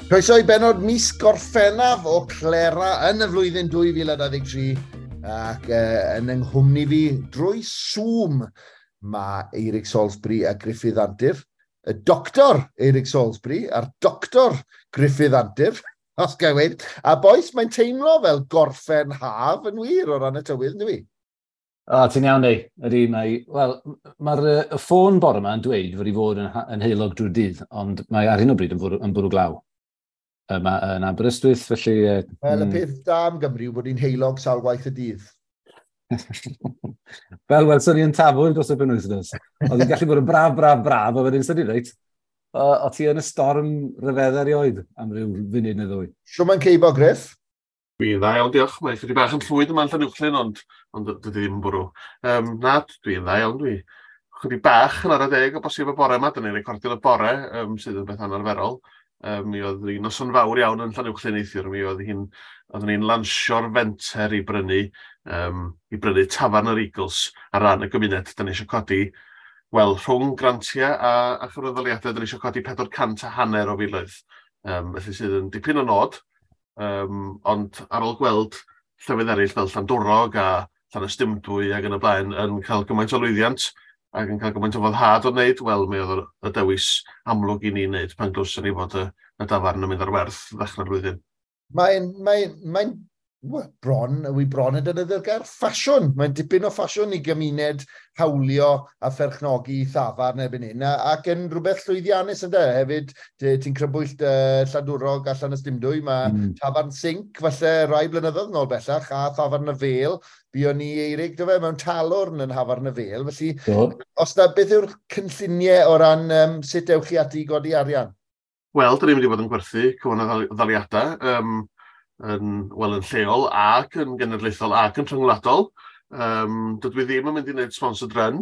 Croeso i benod mis Gorffennaf o Clera yn y flwyddyn 2023 ac yn yng nghwmni fi drwy Zoom mae Eirig Salisbury a Gruffydd Antur, y doctor Eirig Salisbury a'r doctor Gruffydd Antur, os gael weud. A bois, mae'n teimlo fel gorffen haf yn wir o ran y tywydd, ynddo fi? O, ti'n iawn, ei. Ydy, mae... Wel, mae'r y ffôn bore yma yn dweud fod i fod yn heulog drwy'r dydd, ond mae ar hyn o bryd yn bwrw glaw. Yma yn Aberystwyth, felly... Wel, y peth da am Gymru yw bod hi'n heulog sawl gwaith y dydd. Fel welson ni yn Tafwyl dros y penwythnos. Oedd hi'n gallu bod yn braf, braf, braf, a wedyn syni, reit, o ti yn y storm ryfedd erioed am ryw funud neu ddwy. Shwt mae'n ceibo, Griff? Dwi'n dda iawn, diolch. Mae chydig bach yn llwyd yma yn Llanuwchllyn, ond dydy ddim yn bwrw. Na, dwi'n dda iawn, dwi. Chydig bach yn 10:15 o bosib y bore yma, dyn ni'n recordio y bore, sydd yn beth anarferol. Mi oedd hi'n noson fawr iawn yn Llanuwchllyn neithiwr. Mi oedd hi'n, oeddwn ni'n lansio'r fenter i brynu tafarn yr Eagles ar ran y gymuned. Da ni eisiau codi, wel, rhwng grantiau a chyfranddaliadau, da ni eisiau codi 450 o filoedd. Felly sydd yn dipyn o nod. Ond ar ôl gweld llefydd eraill fel Llandwrog a Llanystumdwy ac yn y blaen yn cael gymaint o lwyddiant ac yn cael gymaint o foddhad o wneud, wel, mi oedd y dewis amlwg i ni wneud pan glywson ni fod y dafarn yn mynd ar werth ddechrau'r flwyddyn. Mae'n well, bron, wi bron yn defnyddio'r gair ffasiwn. Mae'n dipyn o ffasiwn i gymuned hawlio a pherchnogi thafarn erbyn hyn, ac yn rhywbeth llwyddiannus ynddo. Hefyd, ti'n crybwyll Llandwrog a Llanystumdwy, mae tafarn Sinc, falle rai blynyddoedd nôl bellach, a thafarn y Fêl. Buon ni, Eirig, do fe, mewn talwrn yn Nhafarn y Fêl. Felly, os na, beth yw'r cynlluniau o ran sut ewch chi ati i godi arian? Wel, dyn ni'n mynd i fod yn gwerthu cyfranddaliadau wel, yn lleol ac yn genedlaethol ac yn rhyngwladol. Dydw i ddim yn mynd i wneud sponsored run.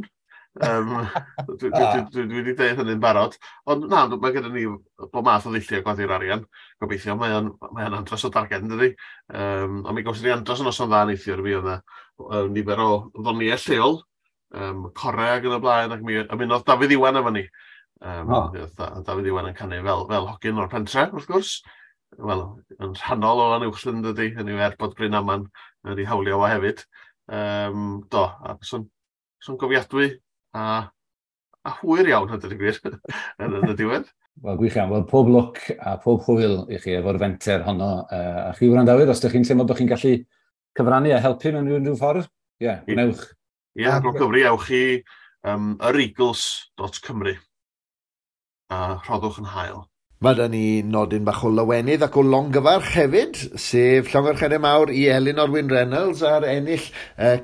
Dwi wedi dweud hynny'n barod. Ond na, mae gyda ni bob math o ddulliau godi'r arian. Gobeithio, mae o'n andros o darged, yn dydi? Ond mi gawson ni andros o noson dda neithiwr. Mi oedd yna nifer o ddoniau lleol, core ac yn y blaen, ac mi ymunodd Dafydd Iwan efo ni. Oh. Dafydd Iwan yn canu fel hogyn o'r pentre, wrth gwrs. Wel, yn rhannol o Lanuwchllyn, dydy, hynny yw er bod Bryn Aman wedi hawlio fo hefyd. Do, a son gofiadwy a hwyr iawn, hynny ydy gwir, yn y diwedd. Wel, gwych iawn. Wel, pob lwc a pob hwyl i chi efo'r fenter honno. A chi wrandawyr, os ydych chi'n teimlo bod chi'n gallu cyfrannu a helpu mewn unrhyw ffordd, ie, yeah, gwnewch. Ie, yeah, rho gyfri, ewch i yreagles.cymru a rhoddwch yn hael. Mae da ni nodyn bach o lawenydd ac o longyfarch hefyd, sef llongyfarchiadau mawr i Elinor Wyn Reynolds ar ennill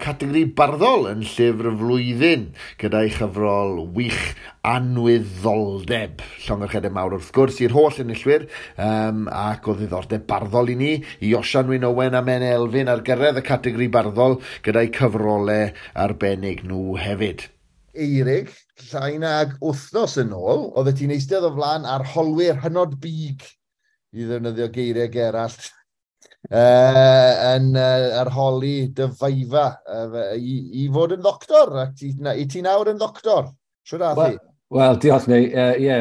categori barddol yn llyfr y flwyddyn gyda'i chyfrol wych Anwyddoldeb. Llongyfarchiadau mawr wrth gwrs i'r holl enillwyr ac o ddiddordeb barddol i ni, i Osian Wyn Owen a Men Elfyn ar gyrraedd y categori barddol gyda'i cyfrolau arbennig nhw hefyd. Eirig, llai nag wythnos yn ôl, oeddet ti'n eistedd o flaen arholwyr hynod big, i ddefnyddio geiriau Gerallt, yn arholi dy viva i fod yn ddoctor, ac i ti nawr yn ddoctor. Shwt ath hi? Wel, diolch, neu, ie,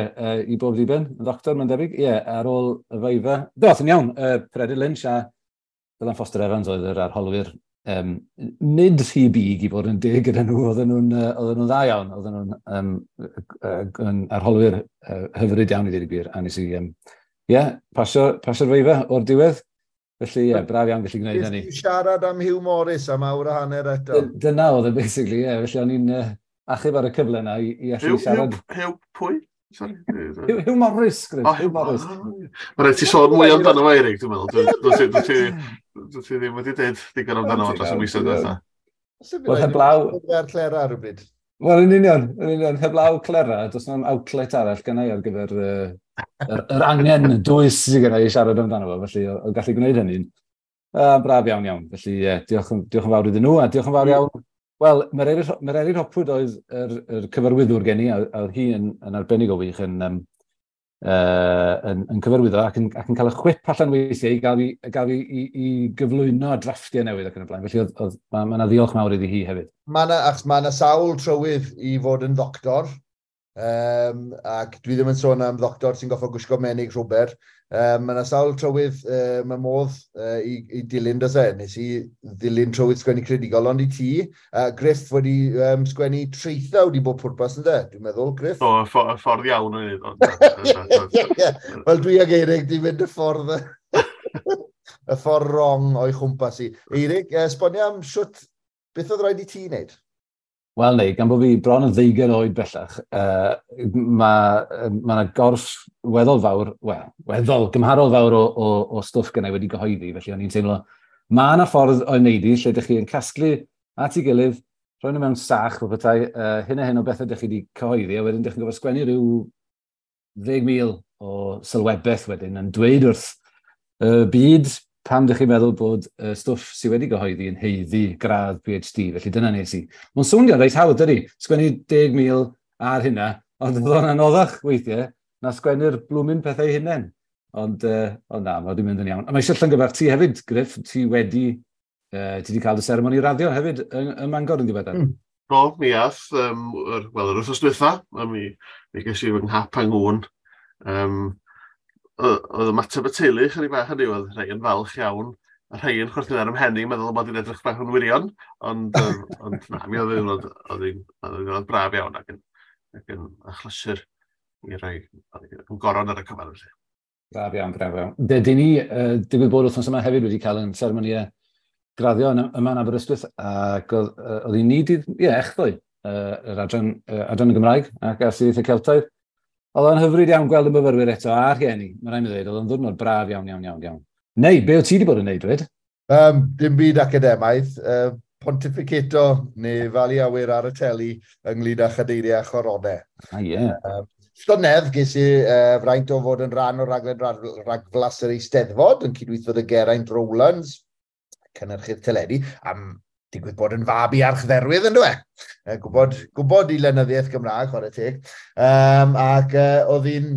i bob diben, yn ddoctor, mae'n debyg. Ie, ar ôl y viva. Do, yn iawn, Peredur Lynch a Dylan Foster Evans oedd yr arholwyr. Nid rhy big i fod yn deg gyda nhw, oedden nhw'n dda iawn, oedden nhw'n yn arholwyr hyfryd iawn i ddweud y gwir, a nes i, yeah, pasio'r viva o'r diwedd. Felly, ie, yeah, braf iawn gallu gwneud hynny. Nes ti siarad am Hugh Morris am awr a hanner eto? Dyna oedd e, basically, ie. Yeah. Felly o'n i'n achub ar y cyfle yna i allu siarad. Hugh pwy? Sorry. Hugh Morris, Griff. Oh, Hugh Morris. Mae rhaid ti sôn mwy amdano fo, Eirig, dwi'n meddwl. Dwi ti ddim wedi dweud digon amdano fo dros y misoedd diwetha. Wel, heblaw Ar Clera rhywbryd. Wel, yn union, heblaw Clera, does na'm outlet arall gynna i ar gyfer yr angen dwys sydd gynna i siarad amdano fo, felly o gallu gwneud hynny'n braf iawn iawn. Felly, yeah, diolch yn fawr iddyn nhw, a diolch yn fawr iawn. Wel, Mererid Hopwood oedd yr cyfarwyddwr gen i, a oedd hi yn arbennig o wych yn cyfarwyddo ac yn cael y chwip allan weithiau i gael fi i gyflwyno drafftiau newydd ac yn y blaen. Felly mae 'na ddiolch mawr iddi hi hefyd. Mae yna, achos mae yna sawl trywydd i fod yn ddoctor, ac dwi ddim yn sôn am ddoctor sy'n goffo gwisgo menig rhwber. Mae yna sawl trywydd, mae modd i dilyn, does e? Nes i ddilyn trywydd sgwennu creadigol, ond i ti, Griff wedi sgwennu traethawd i bob pwrpas, ynde? Dwi'n meddwl, Griff? Do, y ffordd iawn yn ei. Wel, dwi ag Eirig di fynd y ffordd, y ffordd wrong o'i chwmpas i. Eirig, esbonio am siwt, beth oedd rhaid i ti wneud? Wel, neu, gan bod fi bron yn 20 oed bellach, mae yna gorff weddol fawr, wel, weddol, gymharol fawr o stwff gennau wedi gyhoeddi, felly o'n i'n teimlo, mae yna ffordd o'i wneud i, lle ydych chi yn casglu at ei gilydd, rhoi nhw mewn sach, fel petai, hyn a hyn o bethau ydych chi wedi cyhoeddi, a wedyn ydych chi'n gorfod sgwennu rhyw 10,000 o sylwebaeth wedyn yn dweud wrth y byd pam ydych chi'n meddwl bod y stwff sydd wedi gyhoeddi yn haeddu gradd PhD, felly dyna nes i. Mae'n swnio reit hawdd, dydy? Sgwennu 10,000 ar hynna, ond oedd o'n anoddach weithiau na sgwennu'r blwmyn pethau hunain. Ond na, mae wedi mynd yn iawn. A mae eisiau llongyfarch ti hefyd, Griff, ti wedi cael dy seremoni raddio hefyd ym Mangor yn ddiweddar. Do, mi ath, wel, yr wythnos dwytha, mi ges i fy nghap yng ngŵn. Oedd ymateb y teulu chydig bach hynny, oedd rhai yn falch iawn, a rhai yn chwerthin ar 'y mhen i, meddwl bod hi'n edrych bach yn wirion, ond na, mi oedd hi'n braf iawn ac yn achlysur i roi yn goron ar y cyfan. Felly. Braf iawn, braf iawn. Dydyn ni, digwydd bod wythnos yma hefyd wedi cael yn seremoniau graddio yma yn Aberystwyth, ac oedd hi'n ni dydd, ie, echddoe, yr adran y Gymraeg ac Astudiaethau Celtaidd. Oedd o'n hyfryd iawn gweld y myfyrwyr eto a'r rhieni, mae rhaid mi ddweud, oedd o'n ddiwrnod braf iawn, iawn, iawn, iawn. Neu, be o ti wedi bod yn neud, dweud? Dim byd academaidd, pontificato neu falu awyr ar y teli ynglyn â chadeiriau a choronau. Ah, ie. Llynedd ges i fraint o fod yn rhan o raglen ragflas yr Eisteddfod yn cydweithio â Geraint Rowlands, cynhyrchydd teledu, am digwydd bod yn fab i archdderwydd, yn dwi? Gwybod i lenyddiaeth Gymraeg, chwarae teg. Ac oedd hi'n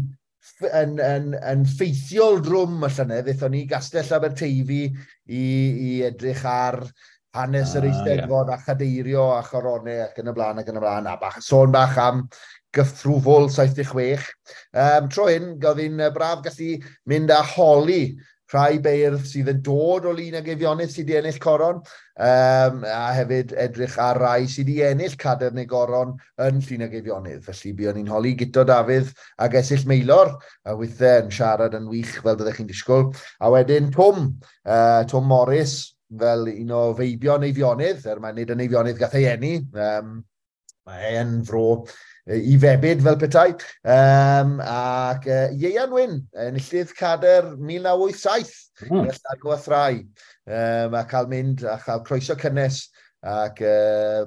yn ffeithiol drwm y llynedd, aethon ni Gastell Aberteifi i edrych ar hanes yr Eisteddfod a chadeirio a choronau ac yn y blaen ac yn y blaen, a bach, sôn bach am gyffrwfwl 76. Tro hyn, oedd hi'n braf gallu mynd a holi rhai beirdd sydd yn dod o Lun ag Eifionydd sydd wedi ennill coron, a hefyd edrych ar rai sydd wedi ennill cadair neu goron yn Llun ag Eifionydd. Felly buon ni'n holi Guto Dafydd ac Esyllt Maelor, a weithiau yn siarad yn wych fel byddech chi'n disgwyl. A wedyn Twm Morys, fel un o feibion Eifionydd, er mae'n nid yn Eifionydd gath ei eni, mae e'n fro i febyd fel petai, ac Ieuan Wyn, enillydd cadair 1987, Llanw a Thrai, a cael mynd a chael croeso cynnes ac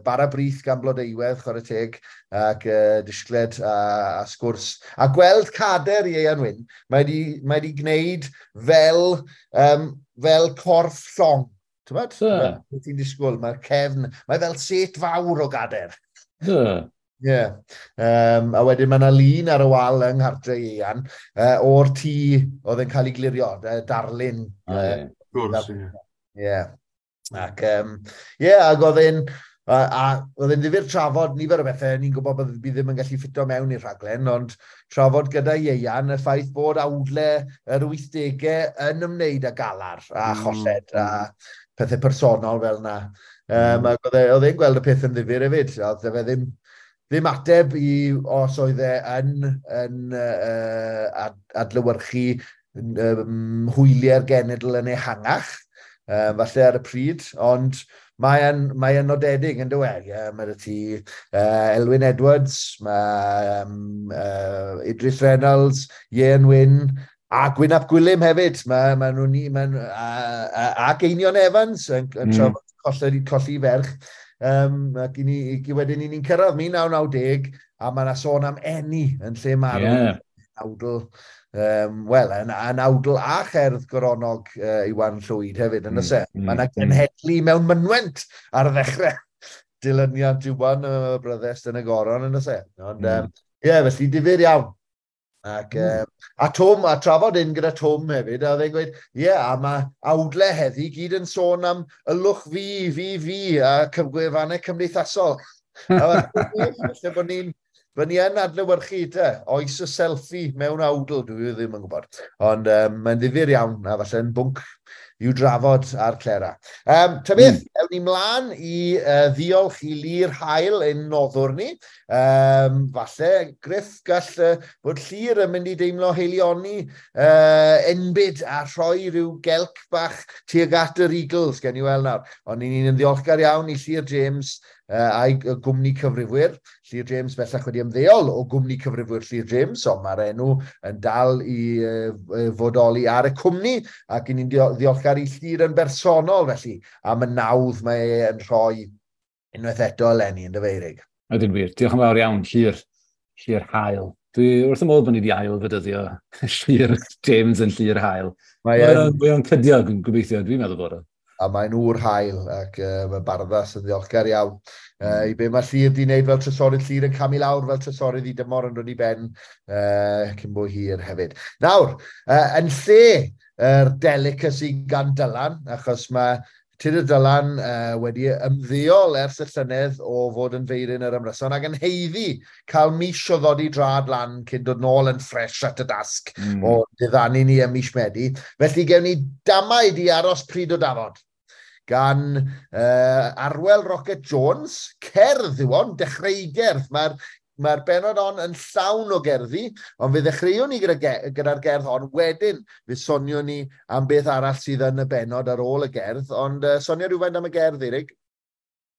bara brith gan Blodeuwedd, chwarae teg, ac disgled a sgwrs. A gweld cadair Ieuan Wyn, mae wedi gwneud fel corff llong. Ti'n gwbod? Ti'n disgwyl, mae'r cefn, mae fel set fawr o gadair. Ie. A wedyn mae yna lun ar y wal yng nghartre Ieuan o'r tŷ oedd yn cael ei glirio, darlun. Gwrs, ie. Ie. Ac, ie, ac oedd e'n oedd e'n ddifyr trafod nifer o bethau, ni'n gwybod bod fi ddim yn gallu ffito mewn i'r rhaglen, ond trafod gyda Ieuan y ffaith bod awdle yr 80au yn ymwneud â galar a cholled a pethau personol fel yna. Ac oedd e'n gweld y peth yn ddifyr hefyd, oedd e ddim ateb i os oedd e yn adlewyrchu hwyliau'r genedl yn ehangach, falle ar y pryd, ond mae e'n nodedig yn dywed. Yeah, mae ti Elwyn Edwards, mae Idris Reynolds, Ieuan Wyn, a Gwyn ap Gwilym hefyd. Mae nhw'n ac Einion Evans yn trafod colli ferch. Ac i wedyn ni'n cyrraedd 1990, a mae yna sôn am eni yn lle marw. Awdl, wel, yn awdl a cherdd goronog Iwan Llwyd hefyd, yn oes e? Mae yna genhedlu mewn mynwent ar y ddechrau dilyniant Iwan y bryddest yn y goron, yn oes e? Ond, ie, felly difyr iawn. Ac, a Twm, a trafod un gyda Twm hefyd, a oedd e'n gweud, ie, a mae awdle heddi gyd yn sôn am ylwch fi, fi, fi, a gwefannau cymdeithasol. A falle bod ni'n Fy ni yn adlewyrchu te, oes y selfie mewn awdl, dwi ddim yn gwybod. Ond mae'n ddifyr iawn, a falle'n bwnc i'w drafod ar Clera. Ta beth, ewn ni mlaen i ddiolch i Llyr Hael ein noddwr ni. Falle, Griff, gall bod Llyr yn mynd i deimlo heilioni enbyd a rhoi rhyw gelc bach tuag at yr Eagles, gen i weld nawr. Ond ni'n ddiolchgar iawn i Llyr James a'i gwmni cyfrifwyr. Llyr James bellach wedi ymddeol o gwmni cyfrifwyr Llyr James, ond mae'r enw yn dal i fodoli ar y cwmni, ac ni'n ddiolchgar i Llyr yn bersonol felly, am y nawdd mae e yn rhoi unwaith eto eleni yn dyfeirig. Ydyn wir. Diolch yn fawr iawn, Llyr. Llyr Hael. Dwi wrth y modd bod ni wedi ail fydyddio Llyr James yn Llyr Hael. Mae o'n cydio, gobeithio, dwi'n meddwl bod o. A mae'n ŵr hael ac mae Barddas yn ddiolchgar iawn. I be mae Llyr di wneud fel trysorydd, Llyr yn camu lawr fel trysorydd i dymor yn dod i ben cyn bo hir hefyd. Nawr, yn lle yr delicacy gan Dylan, achos mae Tudur Dylan wedi ymddeol ers y llynedd o fod yn feiryn yr ymryson ac yn haeddu cael mis o ddod i drad lan cyn dod nôl yn ffres at y dasg o diddanu ni ym mis Medi. Felly gewn ni damaid i aros pryd o dafod gan Arwel Rocket Jones, cerdd yw hon, dechreugerdd. Mae'r bennod hon yn llawn o gerddi, ond fe ddechreuwn ni gyda'r gerdd hon, wedyn fe soniwn ni am beth arall sydd yn y bennod ar ôl y gerdd, ond sonio rhywfaint am y gerdd, Eirig?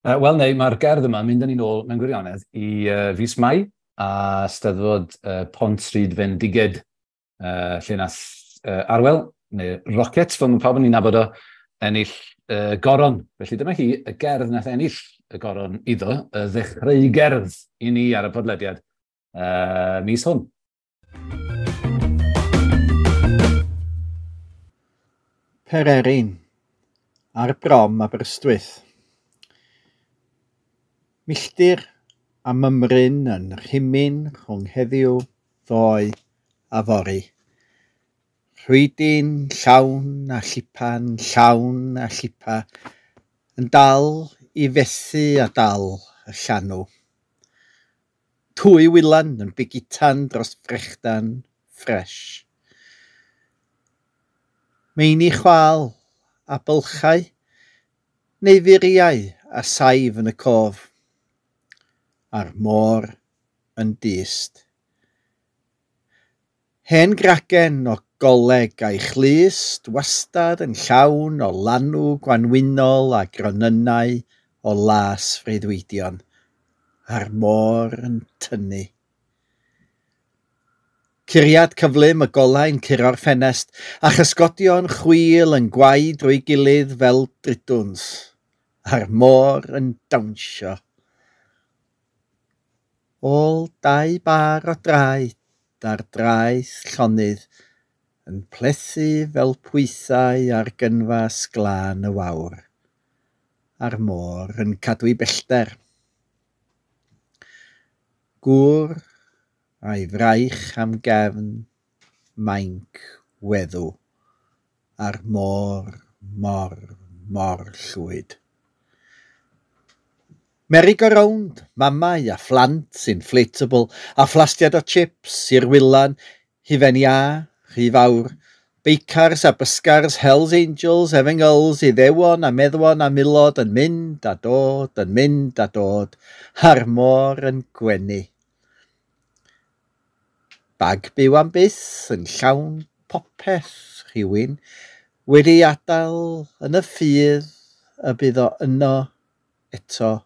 Wel, neu, mae'r gerdd yma yn mynd â ni nôl mewn gwirionedd i fis Mai a Steddfod Pont Stryd Fendiged, lle nath Arwel, neu Rocket, fel mae pawb yn ei nabod o, ennill goron. Felly dyma hi, y gerdd nath ennill y goron iddo, y ddechreugerdd i ni ar y podlediad mis hwn. Pererin, ar brom Aberystwyth. Milltir a mymryn yn rhimyn rhwng heddiw, ddoe a fory. Rhwydyn llawn a llipan, llawn a llipa, yn dal i fethu a dal y llanw. Twy wylan yn bigitan dros frechdan ffres. Meini chwal a bylchau, neu furiau a saif yn y cof, a'r môr yn dyst. Hen gragen o goleg a'i chlust wastad yn llawn o lanw gwanwynol a gronynnau o las freuddwydion, a'r môr yn tynnu. Curiad cyflym y golau'n curo'r ffenest, a chysgodion chwil yn gwau drwy gilydd fel dridwns, a'r môr yn dawnsio. Ôl dau bar o draed ar draeth llonydd yn plethu fel pwythau ar gynfas glân y wawr, a'r môr yn cadw'i bellter. Gŵr a'i fraich am gefn mainc weddw, a'r môr mor, mor llwyd. Merry-go-round, mamau a phlant inflatable, a phlastiad o chips i'r wylan, hufen iâ, rhy fawr, beicars a bysgars, Hells Angels, Efengylls, Iddewon a meddwon a milod yn mynd a dod, yn mynd a dod, a'r môr yn gwenu. Bag byw am byth yn llawn popeth rhywun wedi adael yn y ffydd y bydd o yno eto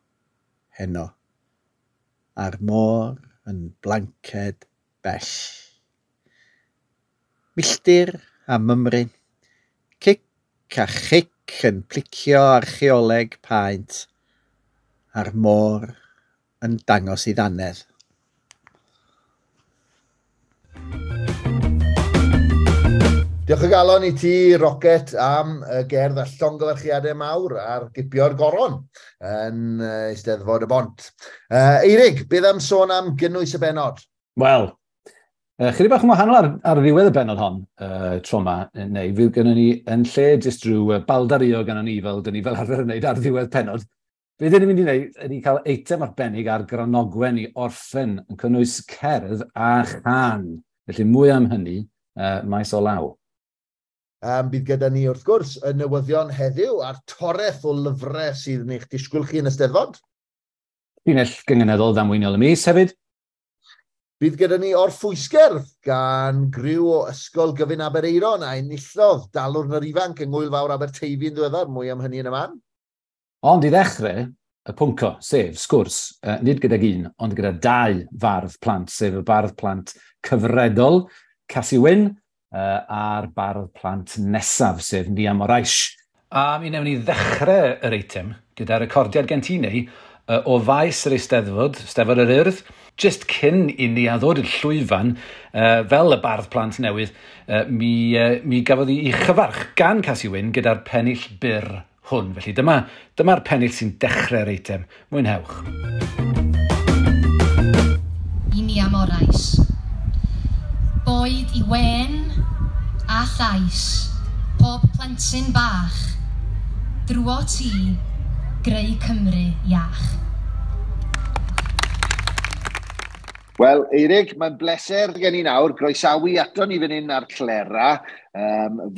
heno, a'r môr yn blanced bell. Milltir a mymryn, cic a chic yn plicio archeoleg paent, a'r môr yn dangos ei ddannedd. Diolch o galon i ti, Rocket, am y gerdd a llongyfarchiadau mawr ar gipio'r goron yn Eisteddfod y Bont. Eirig, beth am sôn am gynnwys y bennod? Wel, chydig bach yn wahanol ar ddiwedd y bennod hon, tro yma, neu fydd gynnon ni yn lle jyst rhyw baldario gynnon ni fel dyn ni fel arfer yn wneud ar ddiwedd pennod. Be dyn ni'n mynd i wneud ydy cael eitem arbennig ar Granogwen i orffen yn cynnwys cerdd a chan. Felly mwy am hynny maes o law. Bydd gyda ni wrth gwrs y newyddion heddiw a'r toreth o lyfrau sydd yn eich disgwyl chi yn y Steddfod. Llinell gynganeddol ddamweiniol y mis hefyd. Bydd gyda ni orffwysgerdd gan griw o Ysgol Gyfun Aberaeron a enillodd Dalwrn yr Ifanc yng Ngŵyl Fawr Aberteifi yn ddiweddar, mwy am hynny yn y man. Ond i ddechrau, y pwnco, sef sgwrs, nid gydag un, ond gyda dau fardd plant, sef y bardd plant cyfredol, Casi Wyn, a'r bardd plant nesaf, sef Nia Morais. A mi wnewn ni ddechrau yr eitem gyda recordiad gen ti neu o faes yr Eisteddfod, Steddfod yr Urdd, just cyn i ni a ddod i'r llwyfan, fel y bardd plant newydd, mi gafodd hi ei chyfarch gan Casi Wyn gyda'r pennill byr hwn. Felly dyma'r pennill sy'n dechrau'r eitem. Mwynhewch. I Nia Morais. Boed i wen a llais, pob plentyn bach, drwo ti, greu Cymru iach. Wel, Eirig, mae'n bleser gen i nawr groesawu ato ni fan hyn ar Clera,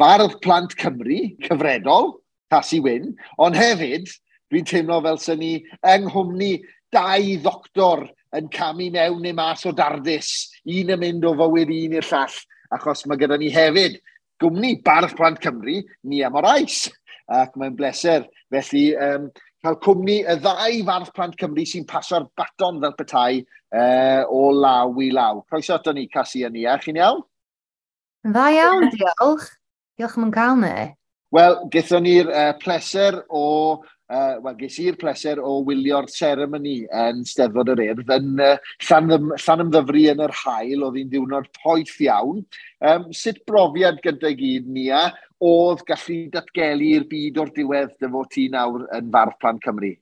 fardd plant Cymru, cyfredol, Casi Wyn, ond hefyd, dwi'n teimlo fel sy'n ni yng nghwmni dau ddoctor yn camu mewn neu mas o dardis, un yn mynd o fywyd un i'r llall, achos mae gyda ni hefyd gwmni Bardd Plant Cymru, Nia Morais, ac mae'n bleser. Felly, cael cwmni y ddau Fardd Plant Cymru sy'n paso'r baton fel petai o law i law. Croeso ato ni, Casi a Nia. Chi'n iawn? Dda iawn, diolch. Diolch am yn cael ni. Wel, gaethon ni'r pleser o... ges i'r pleser o wylio'r seremoni yn Steddfod yr Urdd yn Llanymddyfri yn yr haul, oedd hi'n ddiwrnod poeth iawn. Sut brofiad gyda gyd, Nia, oedd gallu datgelu i'r byd o'r diwedd dy fod ti nawr yn Fardd Plant Cymru?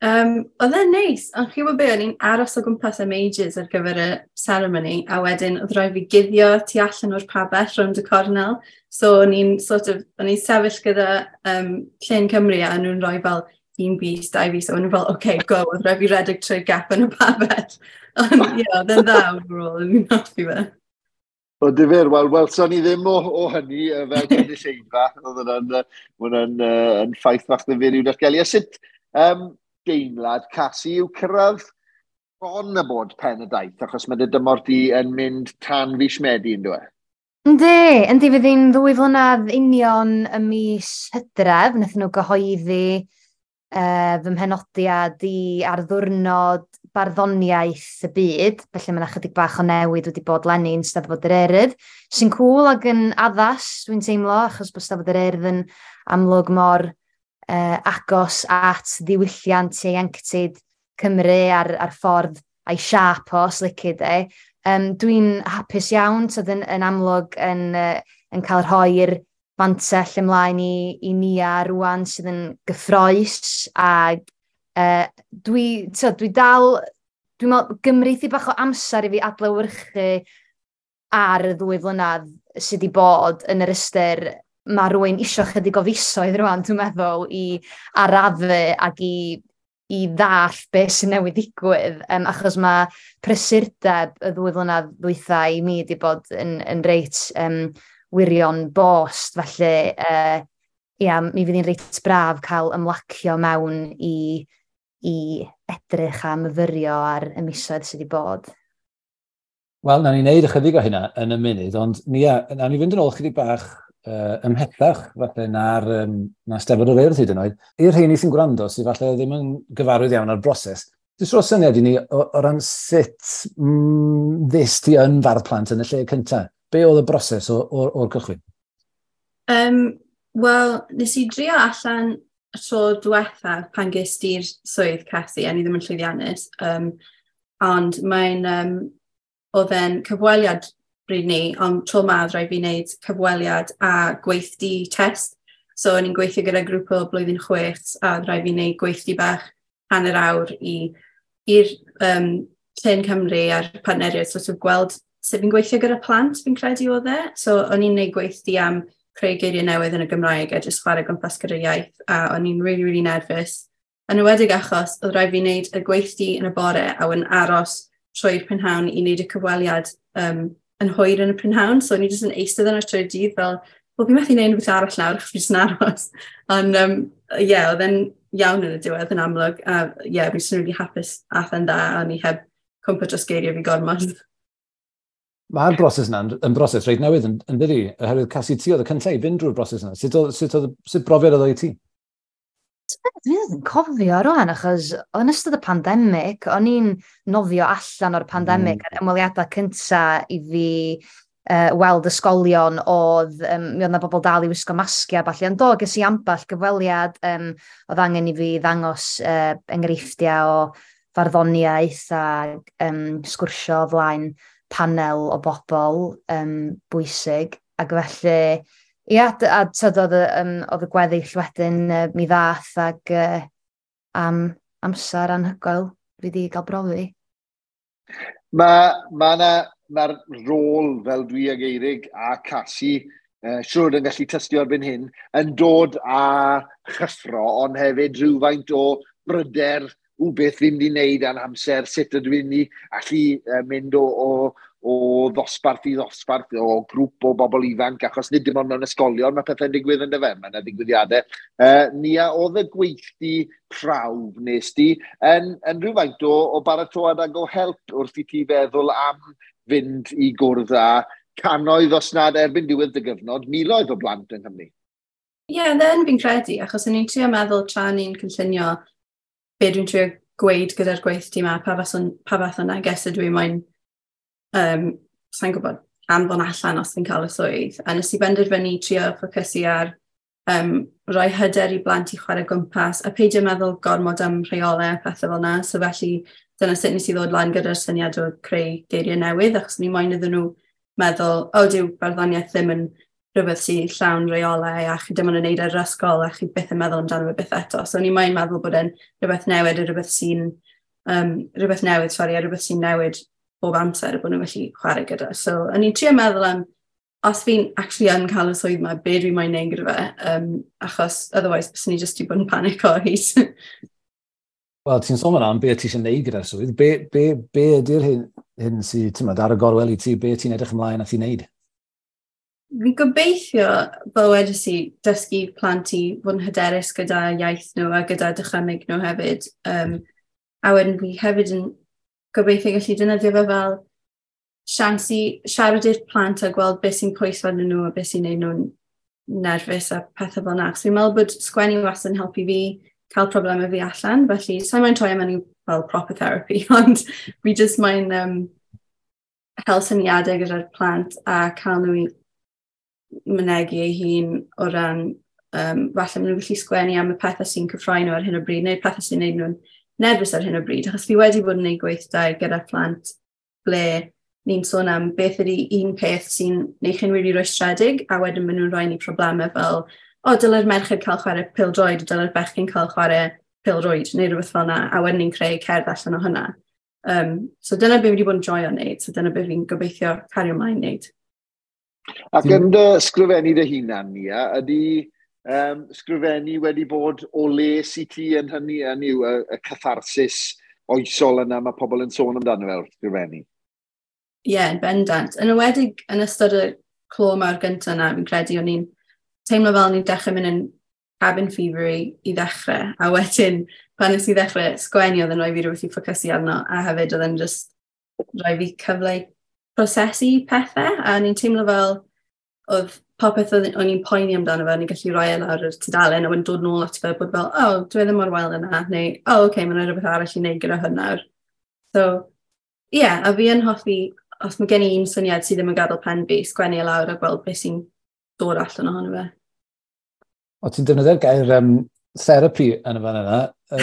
Oedd e'n neis, ond chi'n gwybod be, o'n i'n aros o gwmpas am ages ar gyfer y ceremony, a wedyn oedd rhaid fi guddio tu allan o'r pabell rownd y cornel. So o'n i'n sort of, o'n i'n sefyll gyda Llên Cymru a nhw'n rhoi fel un bys, dau bys, a o'n nhw'n fel, OK, go, oedd rhaid fi redeg trwy'r gap yn y pabell. Ond ie, oedd e'n dda overall, o'n i'n hoffi fe. O difyr, wel, welson ni ddim o hynny fel gynulleidfa. Oedd hwnna'n yn ffaith fach ddifyr i'w datgelu. A sut deimlad, Casi, yw cyrraedd bron y bod pen y daith, achos mae dy dymor di yn mynd tan fis Medi, yn dweud? Yndi, fydd hi'n 2 flynedd union y mis Hydref, wnaethon nhw gyhoeddi fy mhenodiad i ar ddiwrnod barddoniaeth y byd, felly mae yna chydig bach o newid wedi bod leni yn Steddfod yr Urdd, sy'n cŵl ac yn addas, dwi'n teimlo, achos bod Steddfod yr Urdd yn amlwg mor agos at ddiwylliant ieuenctid Cymru a'r ffordd a'i siâp o, os lici di. Dwi'n hapus iawn, tyd yn amlwg yn cael rhoi'r fantell ymlaen i Nia rwan sydd yn gyffrous, ac dwi dal, dwi'n meddwl, gymryd i bach o amser i fi adlewyrchu ar y 2 flynedd sydd wedi bod yn yr ystyr. Mae rhywun isio chydig o fisoedd rwan, dwi'n meddwl, i arafu ac i ddall beth sy'n newydd ddigwydd, achos mae prysurdeb y 2 flynedd ddwytha i mi wedi bod yn reit wirion bost, felly ia, mi fydd hi'n reit braf cael ymlacio mewn i edrych a myfyrio ar y misoedd sydd wedi bod. Wel, nawn ni wneud ychydig o hynna yn y munud, ond Nia, nawn ni fynd yn ôl chydig bach ymhellach, falle na'r na Steddfod yr Urdd hyd yn oed. I'r rheini sy'n gwrando, sydd falle ddim yn gyfarwydd iawn â'r broses, jyst rho syniad i ni o ran sut ddest ti yn fardd plant yn y lle cyntaf. Be oedd y broses o'r cychwyn? Wel, nes i drio allan y tro diwethaf pan ges ti'r swydd, Casi, a ni ddim yn llwyddiannus. Ond mae'n oedd e'n cyfweliad bryd ni, ond tro ma oedd rhaid fi wneud cyfweliad a gweithdy test. So o'n i'n gweithio gyda grŵp o blwyddyn 6 a oedd rhaid fi wneud gweithdy bach hanner awr i'r Llên Cymru a'r partneriaid sort of gweld sut fi'n gweithio gyda plant, fi'n credu oedd e. So o'n i'n wneud gweithdy am creu geiriau newydd yn y Gymraeg a jyst chwarae gwmpas gyda'r iaith, a o'n i'n really, really nervous. Yn enwedig achos oedd rhaid fi wneud y gweithdy yn y bore a wedyn aros trwy'r prynhawn i wneud y cyfweliad yn hwyr yn y prynhawn. So o'n i jyst yn eistedd yna trwy'r dydd fel, wel, fi methu wneud rhywbeth arall nawr achos fi jyst yn aros. Ond ie, oedd e'n iawn yn y diwedd yn amlwg. A ie, yeah, fi jyst yn really hapus ath e'n dda a o'n i heb cwmpo dros geiriau fi gormod. Mae'r broses yna yn broses reit newydd yn dydi? Oherwydd, Casi, ti oedd y cyntaf i fynd drwy'r broses yna. Sut brofiad oedd o i ti? Dwi ddim yn cofio rwan, achos yn ystod y pandemig, o'n i'n nofio allan o'r pandemig, a'r ymweliadau cyntaf i fi weld ysgolion oedd, mi oedd 'na bobl dal i wisgo masgiau a ballu, ond do, ges i ambell gyfweliad, oedd angen i fi ddangos enghreifftiau o farddoniaeth a sgwrsio o flaen panel o bobl bwysig, ac felly, ia, a tyd, oedd y gweddill wedyn mi ddath ac am amser anhygoel fi wedi cael brofi. Mae'r rôl fel dwi ag Eirig a Casi, siwr yn gallu tystio erbyn hyn, yn dod â chyffro, ond hefyd rhywfaint o bryder o beth fi'n mynd i wneud a'n amser, sut ydw i'n mynd i allu mynd o ddosbarth i ddosbarth, o grŵp o bobl ifanc, achos nid dim ond mewn ysgolion mae pethau'n digwydd yn dyfe, mae yna ddigwyddiadau. Nia, oedd y gweithdy prawf nes di yn rhywfaint o baratoad ag o help wrth i ti feddwl am fynd i gwrdd â cannoedd, os nad erbyn diwedd dy gyfnod, miloedd o blant yng Nghymru? Ie, yeah, then fi'n credu, achos o'n i'n trio meddwl tra ni'n cynllunio be dwi'n trio gweud gyda'r gweithdy yma, pa fath o neges ydw i moyn, sa'n gwybod, anfon allan os fi'n cael y swydd. A nes i benderfynu trio ffocysu ar rhoi hyder i blant i chwarae gwmpas a peidio meddwl gormod am rheolau a pethau fel yna. So felly dyna sut nes i ddod lan gyda'r syniad o creu geiriau newydd, achos ni moyn iddyn nhw meddwl, o, dyw barddoniaeth ddim yn rhywbeth sy'n llawn reolau a chi dim ond yn neud ar yr ysgol a chi byth yn meddwl amdano fe byth eto. So ni moyn meddwl bod e'n rhywbeth newid a rhywbeth sy'n rhywbeth newydd, sori, a rhywbeth sy'n newid bob amser a bod nhw'n gallu chwarae gyda. So o'n i'n trio meddwl am, os fi'n actually yn cael y swydd yma, be dwi moyn neud gyda fe, achos otherwise byswn i jyst i bod yn panic o hyd. Wel, ti'n sôn am be ti eisiau neud gyda'r swydd. Be ydy'r hyn sydd, ti'n meddwl, ar y gorwel i ti, be ti'n edrych ymlaen at i wneud? Fi'n gobeithio, fel wedes i, dysgu plant i fod yn hyderus gyda iaith nhw a gyda dychymyg nhw hefyd. A wedyn fi hefyd yn gobeithio gallu defnyddio fe fel siawns i siarad i'r plant a gweld beth sy'n pwyso arnyn nhw a beth sy'n neud nhw'n nerfus a pethau fel 'na. Achos fi'n meddwl bod sgwennu wastad yn helpu fi cael problemau fi allan, felly sa'n moyn troi mewn i fel proper therapy, ond fi jyst moyn hel syniadau gyda'r plant a cael nhw i mynegi ei hun o ran, falle maen nhw'n gallu sgwennu am y pethau sy'n cyffroi nhw ar hyn o bryd, neu'r pethau sy'n neud nhw'n nerfus ar hyn o bryd, achos fi wedi bod yn gwneud gweithdai gyda plant ble ni'n sôn am beth ydy un peth sy'n neud chi'n really rwystredig, a wedyn maen nhw'n rhoi ni problemau fel, o, dylai'r merched cael chwarae pêl-droed, dylai'r bechgyn cael chwarae pêl-rwyd, neu rhywbeth fel yna, a wedyn ni'n creu cerdd allan o hynna. So dyna be fi wedi bod yn joio wneud, so dyna be fi'n gobeithio cario ymlaen wneud. Ac yn dy sgrifennu dy hunan, Nia, ydy sgrifennu wedi bod o les i ti yn hynny, yn yw y catharsis oesol yna mae pobl yn sôn amdano fel sgrifennu? Ie, yeah, yn bendant. Yn enwedig yn ystod y clo mawr gyntaf yna, fi'n credu o'n i'n teimlo fel o'n i'n dechrau mynd yn cabin fever i ddechrau, a wedyn pan nes i ddechrau sgwennu oedd yn rhoi fi rhywbeth i ffocysu arno, a hefyd oedd yn just rhoi fi cyfle i prosesu pethau, a o'n i'n teimlo fel oedd popeth o'n i'n poeni amdano fe, o'n i'n gallu rhoi e lawr yr tudalen a wedyn dod nôl ato fe bod fel, o, oh, dwi e ddim mor wael yna, neu, o, oh, okay, mae'n rhywbeth arall i wneud gyda hwn nawr. So, ie, yeah, a fi yn hoffi, os mae gen i un syniad sydd ddim yn gadael pen fi, sgwennu e lawr a gweld beth sy'n dod allan ohono fe. O, ti'n defnyddio'r gair therapy yn y fan yna,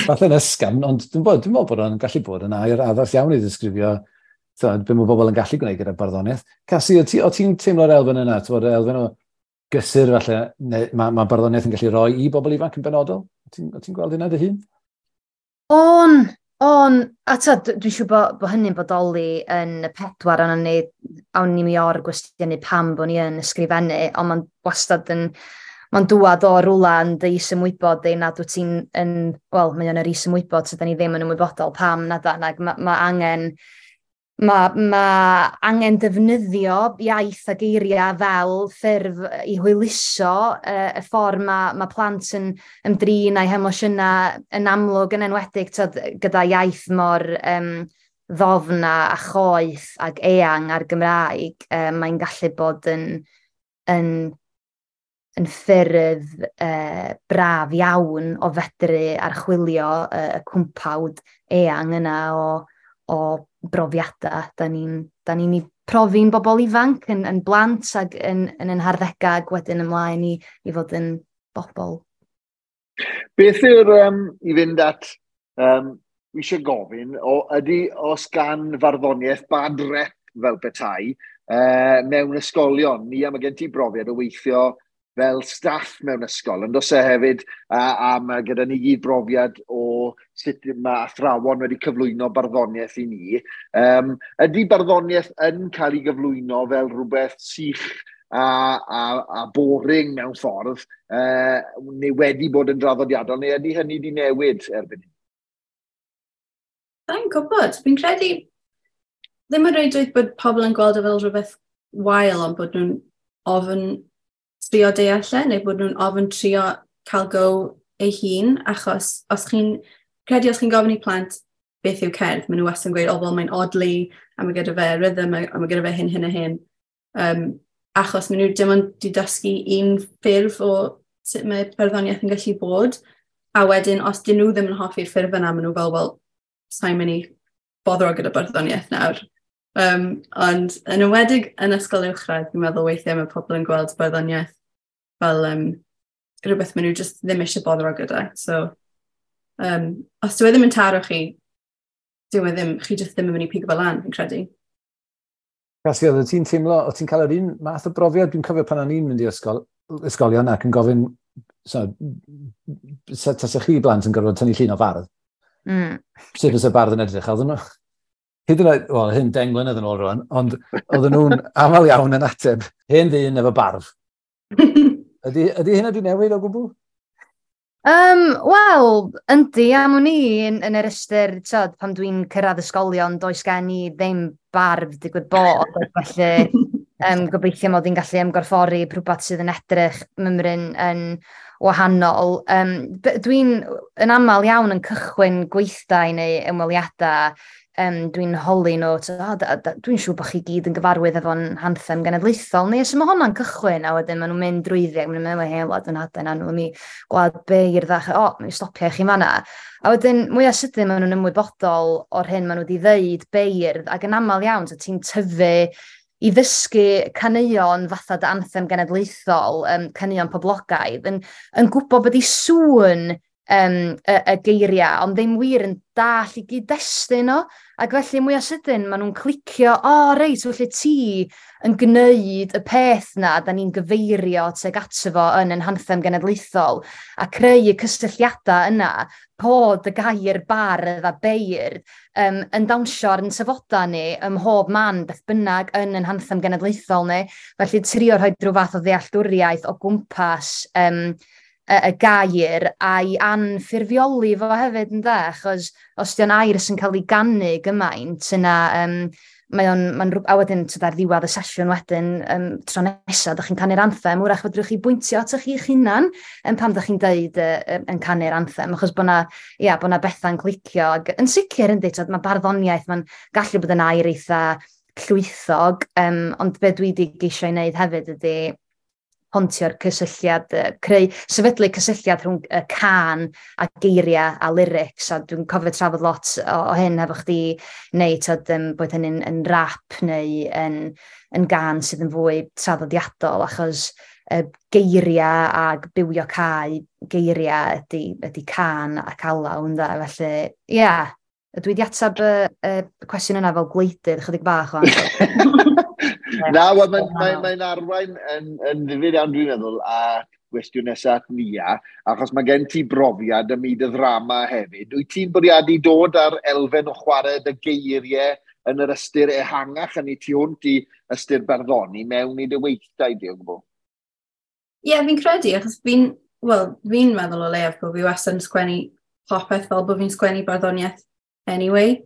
falle'n ysgafn, ond dwi'n meddwl bod o'n gallu bod yn air addas iawn i ddisgrifio be mae bobl yn gallu gwneud gyda barddoniaeth. Casi, o ti'n teimlo'r elfen yna, ti'n bod, elfen o gysur falle, neu mae barddoniaeth yn gallu rhoi i bobl ifanc yn benodol? O ti'n gweld hynna dy hun? On, a ta, dwi'n siŵr bod hynny'n bodoli yn y pedwar ond ni, awn ni mi o'r gwestiynu pam bod ni yn ysgrifennu, ond mae'n wastad yn Mae'n dŵad o rwla yn dy isymwybod di nad wyt ti'n yn, wel, mae o'n yr isymwybod sydd ni ddim yn ymwybodol pam nad ac ma angen ma angen defnyddio iaith a geiriau fel ffurf i hwyluso y ffordd mae plant yn ymdrin â'u hemosiynau yn amlwg, yn enwedig tyd, gyda iaith mor ddofn a choeth ac eang ar Gymraeg, mae'n gallu bod yn ffyrdd braf iawn o fedru archwilio y cwmpawd eang yna o brofiadau. Da ni'n profi'n bobl ifanc, yn blant ac yn harddegau ac wedyn ymlaen i fod yn bobl. Beth yw'r, i fynd at, wi eisiau gofyn, ydy os gan farddoniaeth bad rep fel petai mewn ysgolion? Ni am gen ti brofiad o weithio fel staff mewn ysgol, ond os e hefyd, a mae gyda ni gyd brofiad o sut mae athrawon wedi cyflwyno barddoniaeth i ni. Ydy barddoniaeth yn cael ei gyflwyno fel rhywbeth sych a boring mewn ffordd, neu wedi bod yn draddodiadol, neu ydy hynny wedi newid erbyn hyn? Sa'n gwybod. Fi'n credu ddim yn reidrwydd bod pobl yn gweld e fel rhywbeth wael, ond bod nhw'n ofn trio deall e, neu bod nhw'n ofn trio cael go ei hun, achos os chi'n credu os chi'n gofyn i plant beth yw cerdd, maen nhw wastad yn gweud, o, wel, mae'n odli, a mae gyda fe rhythm, a mae gyda fe hyn, hyn a hyn. Achos maen nhw dim ond wedi dysgu un ffurf o sut mae barddoniaeth yn gallu bod, a wedyn, os dyn nhw ddim yn hoffi'r ffurf yna, maen nhw fel, wel, sa'n mynd i boddro gyda barddoniaeth nawr. Ond yn enwedig yn ysgol uwchradd, fi'n meddwl weithiau mae pobl yn gweld barddoniaeth fel rhywbeth maen nhw just ddim eisiau boddro gyda. So, os dyw e ddim yn taro chi, dyw e ddim, chi just ddim yn mynd i pigo fel lan, fi'n credu. Casi, oedd ti'n teimlo, oedd ti'n cael yr un math o brofiad? Dwi'n cofio pan o'n i'n mynd i ysgolion ac yn gofyn, so, tasach chi blant yn gorfod tynnu llun o fardd? Sut fysa bardd yn edrych? Oedden nhw, hyd yn oed, wel, hyn 10 mlynedd yn ôl rwan, ond oedden nhw'n aml iawn yn ateb, hen ddyn efo barf. Ydy hynna wedi newid o gwbl? Wel, yndi, am wn i yn yr ystyr, tyd, pan dwi'n cyrraedd ysgolion, does gen i ddim barf digwydd bod, felly gobeithio mod i'n gallu ymgorffori rhywbeth sydd yn edrych mymryn yn wahanol. Dwi'n yn aml iawn yn cychwyn gweithdai neu ymweliadau, dwi'n holi nhw, dwi'n siŵr bod chi gyd yn gyfarwydd efo'n anthem genedlaethol, neu os mae hwnna'n cychwyn, a wedyn maen nhw'n mynd drwyddi, ac maen nhw'n meddwl, hei, wlad yn hadau, na nhw'n mi gwlad beirdd, a o, mi stopio i chi fanna. A wedyn, mwyaf sydyn maen nhw'n ymwybodol o'r hyn maen nhw wedi ddeud beirdd, ac yn aml iawn, so ti'n tyfu i ddysgu caneuon fatha dy anthem genedlaethol, caneuon poblogaidd, yn gwybod bod i sŵn y geiriau, ond ddim wir yn dall i gyd-destun o. Ac felly mwyaf sydyn, maen nhw'n clicio, o reit, felly ti yn gwneud y peth na, da ni'n gyfeirio tuag ato fo yn ein hanthem genedlaethol, a creu y cysylltiadau yna, bod y gair bardd a beirdd yn dawnsio ar yn tafodau ni ym mhob man, beth bynnag yn ein hanthem genedlaethol ni. Felly trio rhoi rhyw fath o ddealltwriaeth o gwmpas y gair a'i anffurfioli fo hefyd, ynde, achos os 'di o'n air sy'n cael ei ganu gymaint, yna mae o'n, mae'n a wedyn tyd ar ddiwedd y sesiwn wedyn, tro nesaf, dych chi'n canu'r anthem, wrach fedrwch chi bwyntio atoch chi'ch hunan pam dych chi'n deud yn canu'r anthem, achos bod na, ia, bo' na bethau'n clicio. Ac yn sicr, yndi, tyd, mae barddoniaeth, mae'n gallu bod yn air eitha llwythog, ond be dwi wedi geisio i wneud hefyd ydy pontio'r cysylltiad, creu, sefydlu cysylltiad rhwng y cân a geiriau a lyrics, a dwi'n cofio trafod lot o hyn efo chdi, neu tyd, bod hynny'n yn rap neu yn gân sydd yn fwy traddodiadol, achos geiriau ag bywio cae geiriau ydy cân ac alaw, ynde, felly, ie, yeah, dwi wedi ateb y cwestiwn yna fel gwleidydd chydig bach o'n. Na, wel, mae'n arwain yn ddifyr iawn, dwi'n meddwl, a gwestiwn nesaf at Nia, achos mae gen ti brofiad ym myd y ddrama hefyd. Wyt ti'n bwriadu dod ar elfen o chwarae dy geiriau yn yr ystyr ehangach, yn ei tu hwnt i ystyr barddoni mewn i dy weithdai di o gwbl? Ie, yeah, fi'n credu, achos fi'n, well, fi'n meddwl o leiaf bod fi wastad yn sgwennu popeth fel bod fi'n sgwennu barddoniaeth anyway.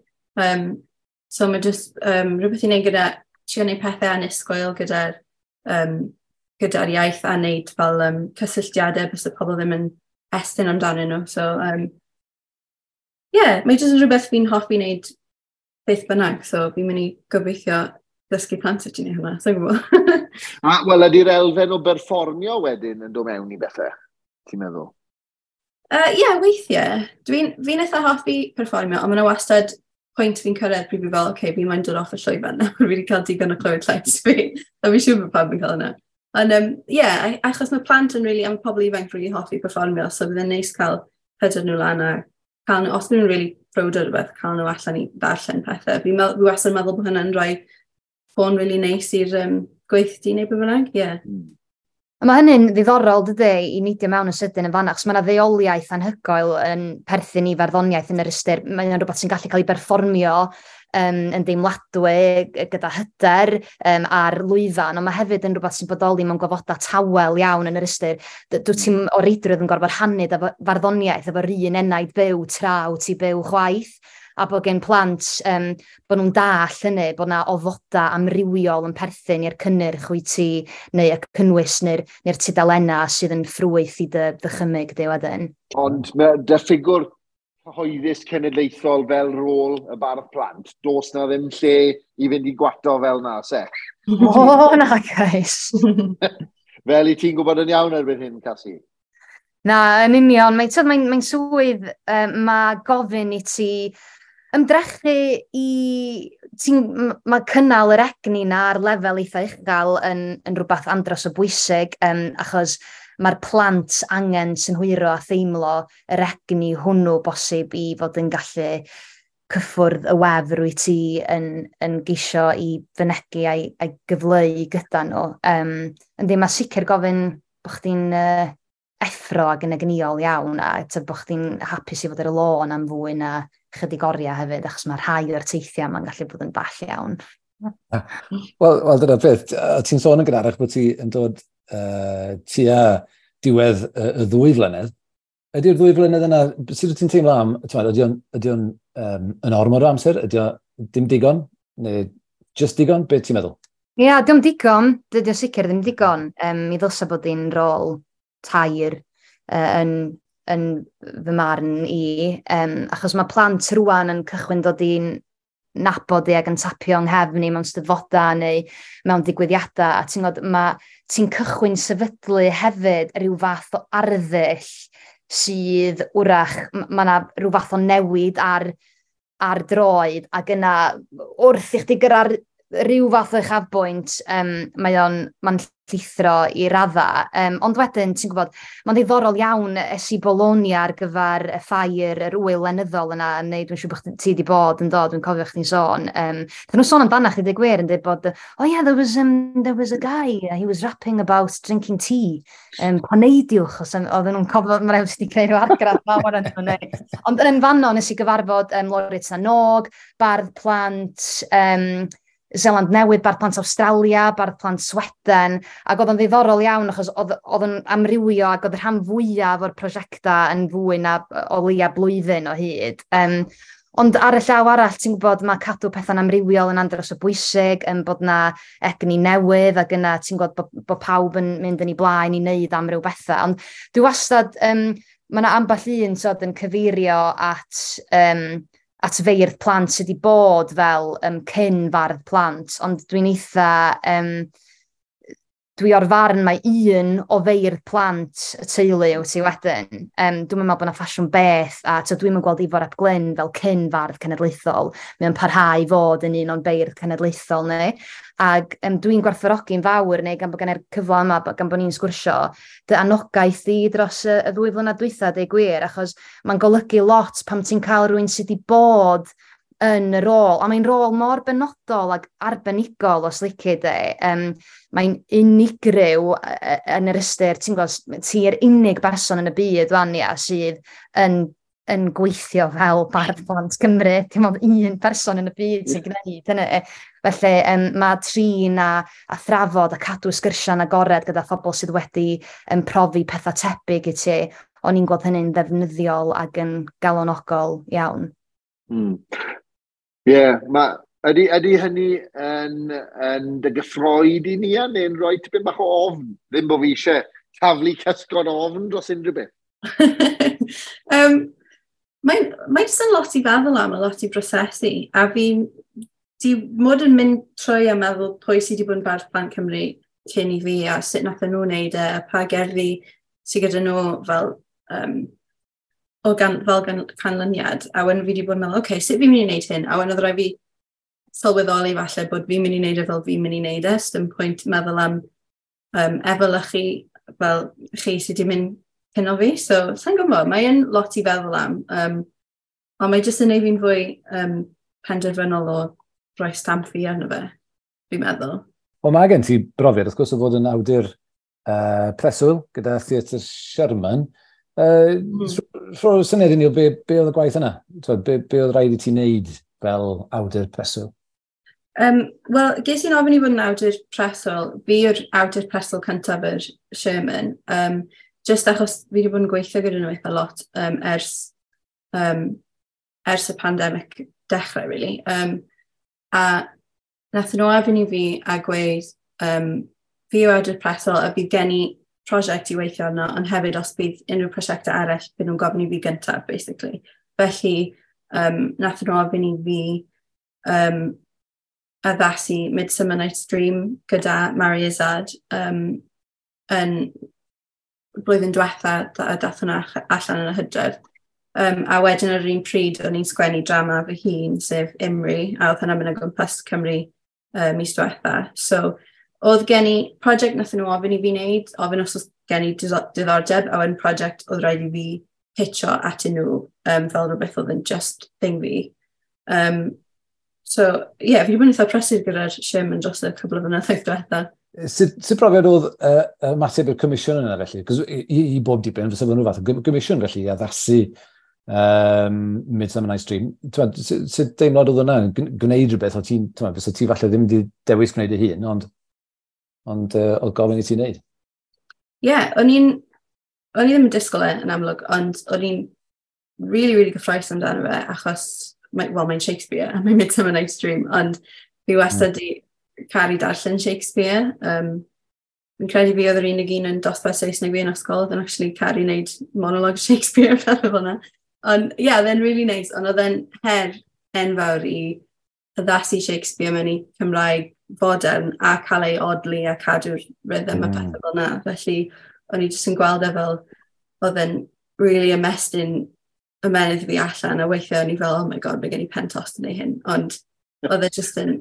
So mae just rhywbeth i wneud gyda trio wneud pethau annisgwyl gyda'r gyda iaith a wneud fel cysylltiadau bys y pobl ddim yn estyn amdanyn nhw. So, yeah, mae jyst yn rhywbeth fi'n hoffi wneud beth bynnag, so fi'n mynd i gobeithio ddysgu plant sut i wneud hwnna, so'n gwybod. A, wel, ydy'r elfen o berfformio wedyn yn dod mewn i bethau, ti'n meddwl? Ie, yeah, weithiau. Fi'n eitha hoffi perfformio, ond mae'n wastad pwynt fi'n cyrraedd pryd fi fel, oce, okay, fi moyn dod off y llwyfan nawr, fi wedi cael digon o clywed llais fi. A fi'n siŵr bod pawb yn cael yna. Ond, ie, yeah, achos mae plant yn really, a mae pobl ifanc really hoffi perfformio, so bydd yn neis cael hyder nhw lan a cael nhw, os nhw'n really proud o rhywbeth, cael nhw allan i ddarllen pethau. Fi wastad yn meddwl bod hynny'n rhoi ffôn really neis i'r gweithdy neu beth bynnag, ie. Yeah. A mae hynny'n ddiddorol, dydy, i neidio mewn yn sydyn yn fanna, achos mae yna ddeoliaeth anhygoel yn perthyn i farddoniaeth yn yr ystyr. Mae'n rhywbeth sy'n gallu cael ei berfformio yn deimladwy gyda hyder ar lwyfan, ond mae hefyd yn rhywbeth sy'n bodoli mewn gofodau tawel iawn yn yr ystyr. Dwi ti'n o reidrwydd yn gorfod rhannu farddoniaeth efo'r un enaid byw tra wyt ti byw chwaith, a bod gen plant, bod nhw'n dall hynny, bod na ofodau amrywiol yn perthyn i'r cynnyrch wyt ti, neu y cynnwys neu'r neu tudalennau sydd yn ffrwyth i dy ddychymyg di wedyn. Ond dy ffigwr cyhoeddus cenedlaethol fel rôl y bardd plant, does na ddim lle i fynd i gwato fel na, se? O, na, guys. Fel i ti'n gwybod yn iawn erbyn hyn, Casi? Na, yn union. Mae'n mae swydd, mae gofyn i ti ymdrechu i... Mae cynnal yr egni na ar lefel eitha uchel yn rhywbeth andros o bwysig, achos mae'r plant angen synhwyro a theimlo yr egni hwnnw bosib i fod yn gallu cyffwrdd y wefr wyt ti yn geisio i fynegi a'i gyfleu gyda nhw. Yndi, mae sicr gofyn bod chdi'n effro ac yn egnïol iawn a bod chdi'n hapus i fod ar y lôn am fwy na chydig oriau hefyd, achos mae rhai o'r teithiau ma'n gallu bod yn ball iawn. Wel, dyna beth. Ti'n sôn yn gynharach bod ti yn dod tua diwedd y 2 flynedd. Ydy'r 2 flynedd yna, sut wyt ti'n teimlo am, ydy o'n yn ormod o amser? Ydy o dim digon? Neu just digon? Be ti'n meddwl? Ie, yeah, diom digon. Dydy o sicr ddim digon. Mi ddylsa bod hi'n rôl tair yn fy marn i, achos mae plant rwan yn cychwyn dod i'n nabod i ac yn tapio yng nghefn i mewn steddfodau neu mewn digwyddiadau, a ti'n gwybod, ti'n cychwyn sefydlu hefyd rhyw fath o arddull sydd wrach, mae yna rhyw fath o newid ar droed, ac yna wrth i chdi gyrra'r rhyw fath o uchafbwynt, mae'n llithro i radda. Ond wedyn, ti'n gwybod, mae'n ddiddorol iawn es i Bologna ar gyfer y ffair, yr wyl lenyddol yna, neu dwi'n siŵr bod ti wedi bod yn dod, dwi'n cofio chdi'n sôn. Dyn nhw'n sôn amdana chdi, dweud gwir, yn dweud bod, oh yeah, there was a guy, he was rapping about drinking tea. Paneidiwch, os oedden nhw'n cofio, mae'n rhaid wedi creu rhyw argraff mawr yn nhw. Ond yn fanno, nes i gyfarfod Laureate na Nog, bardd plant, Zeland Newydd, bardd plant Awstralia, bardd plant Sweden, ac oedd o'n ddiddorol iawn achos oedd o'n amrywio ac oedd y rhan fwyaf o'r prosiectau yn fwy na o leia blwyddyn o hyd. Ond ar y llaw arall, ti'n gwybod, mae cadw pethau'n amrywiol yn andros o bwysig, yn bod na egni newydd, ac yna ti'n gwybod bod pawb yn mynd yn ei blaen i wneud amryw bethau. Ond dwi wastad, mae yna ambell un sod yn cyfeirio at at feirdd plant sydd wedi bod fel cyn fardd plant, ond dwi'n eitha, dwi o'r farn mae un o feirdd plant y teulu wyt ti wedyn. Dwi'n meddwl bod yna ffasiwn beth, a dwi'n gweld Ifor ap Glyn fel cyn fardd cenedlaethol. Mae'n parhau i fod yn un o'n beirdd cenedlaethol ni. Ac dwi'n gwerthfawrogi'n fawr neu gan bod gen i'r cyfle yma, gan bod ni'n sgwrsio, dy anogaeth di dros y 2 flynedd dwytha, deud gwir, achos mae'n golygu lot pam ti'n cael rhywun sydd wedi bod yn y rôl, a mae'n rôl mor benodol ac arbenigol os lici di. Mae'n unigryw yn yr ystyr, ti'n gwybod, ti'n unig berson yn y byd fan ia, sydd yn yn gweithio fel Bardd Plant Cymru. Dim ond un person yn y byd sy'n gwneud hynny. Felly mae trin a thrafod a cadw sgyrsiau'n agored gyda phobl sydd wedi profi pethau tebyg i ti, o'n i'n gweld hynny'n ddefnyddiol ac yn galonogol iawn. Ie, yeah, ydy hynny yn dy gyffroi di ni, neu'n rhoi tipyn bach o ofn? Ddim bod fi eisiau taflu cysgod ofn dros unrhyw beth. Mae jyst yn lot i feddwl am, a lot i brosesu. A fi di mod yn mynd trwy a meddwl pwy sydd wedi bod yn Bardd Plant Cymru cyn i fi a sut nath nhw wneud e, a pa gerddi sydd gyda nhw fel, o gan, fel gan, canlyniad. A wedyn fi wedi bod yn meddwl, okay, sut fi'n mynd i wneud hyn? A wedyn oedd rhaid fi sylweddoli falle bod fi'n mynd i wneud e fel fi'n mynd i wneud e. Dim pwynt meddwl am efelychu fel chi sydd wedi mynd cyn o fi. So, sa'n gwybod, mae'n lot i feddwl am. Ond mae jyst yn neud fi'n fwy penderfynol o rhoi stamp fi arno fe, fi'n meddwl. Wel, mae gen ti brofiad, wrth gwrs, o fod yn awdur preswyl gyda Theatr Sherman. Rho syniad i ni o be oedd y gwaith yna? Be oedd rhaid i ti wneud fel awdur preswyl? Wel, ges i'n ofyn i fod yn awdur preswyl. Fi yw'r awdur preswyl cyntaf yr Sherman. Just achos fi wedi bod yn gweithio gyda nhw eitha lot ers y pandemig dechrau, really. A nath nhw ofyn i fi a gweud, fi yw awdur preswyl a bydd gen i prosiect i weithio arno, ond hefyd os bydd unrhyw prosiectau eraill, bydd nhw'n gofyn i fi gyntaf, basically. Felly, nath nhw ofyn i fi addasu Midsummer Night's Dream gyda Mari Izzard yn blwyddyn diwetha a dath hwnna allan yn y hydref. A wedyn ar yr un pryd o'n i'n sgwennu drama fy hun, sef Imri, a oedd hwnna'n mynd o gwmpas Cymru mis diwetha. So, oedd gen i prosiect nath nhw ofyn i fi wneud, ofyn os oedd gen i diddordeb, a wedyn prosiect oedd rhaid i fi pitcho atyn nhw fel rhywbeth oedd yn just thing fi. So, ie, yeah, fi wedi bod yn eitha prysur gyda'r Sherman dros y cwbl o flynyddoedd diwetha. Sut brofiad oedd ymateb i'r comisiwn yna felly? Cos i bob diben, fysa nhw fath o gomisiwn felly i addasu Midsummer Night's Dream. Sut deimlad oedd hwnna? Gwneud rhywbeth, o ti'n, fysa ti falle ddim wedi dewis gwneud ei hun, ond oedd gofyn i ti wneud? Ie, yeah, o'n i ddim yn disgwyl e yn amlwg, ond o'n i'n really, really gyffrous amdano fe, achos, well, mae'n Shakespeare, a mae'n Midsummer Night's Dream, ond fi wastad di caru darllen Shakespeare. Fi'n credu fi oedd yr unig un yn dosbarth Saesneg fi yn ysgol, oedd yn actually caru wneud monologue Shakespeare fel fel yna. Ond ie, yeah, oedd e'n really nice, ond oedd e'n her enfawr i addasu Shakespeare mewn i Cymraeg fodern a cael ei odli a cadw'r rhythm a pethau fel yna. Felly, o'n i jyst yn gweld e fel oedd e'n really ymestyn ymennydd fi allan, a weithiau o'n i fel, oh my God, mae gen i pen tost yn ei hyn. Ond oedd e jyst yn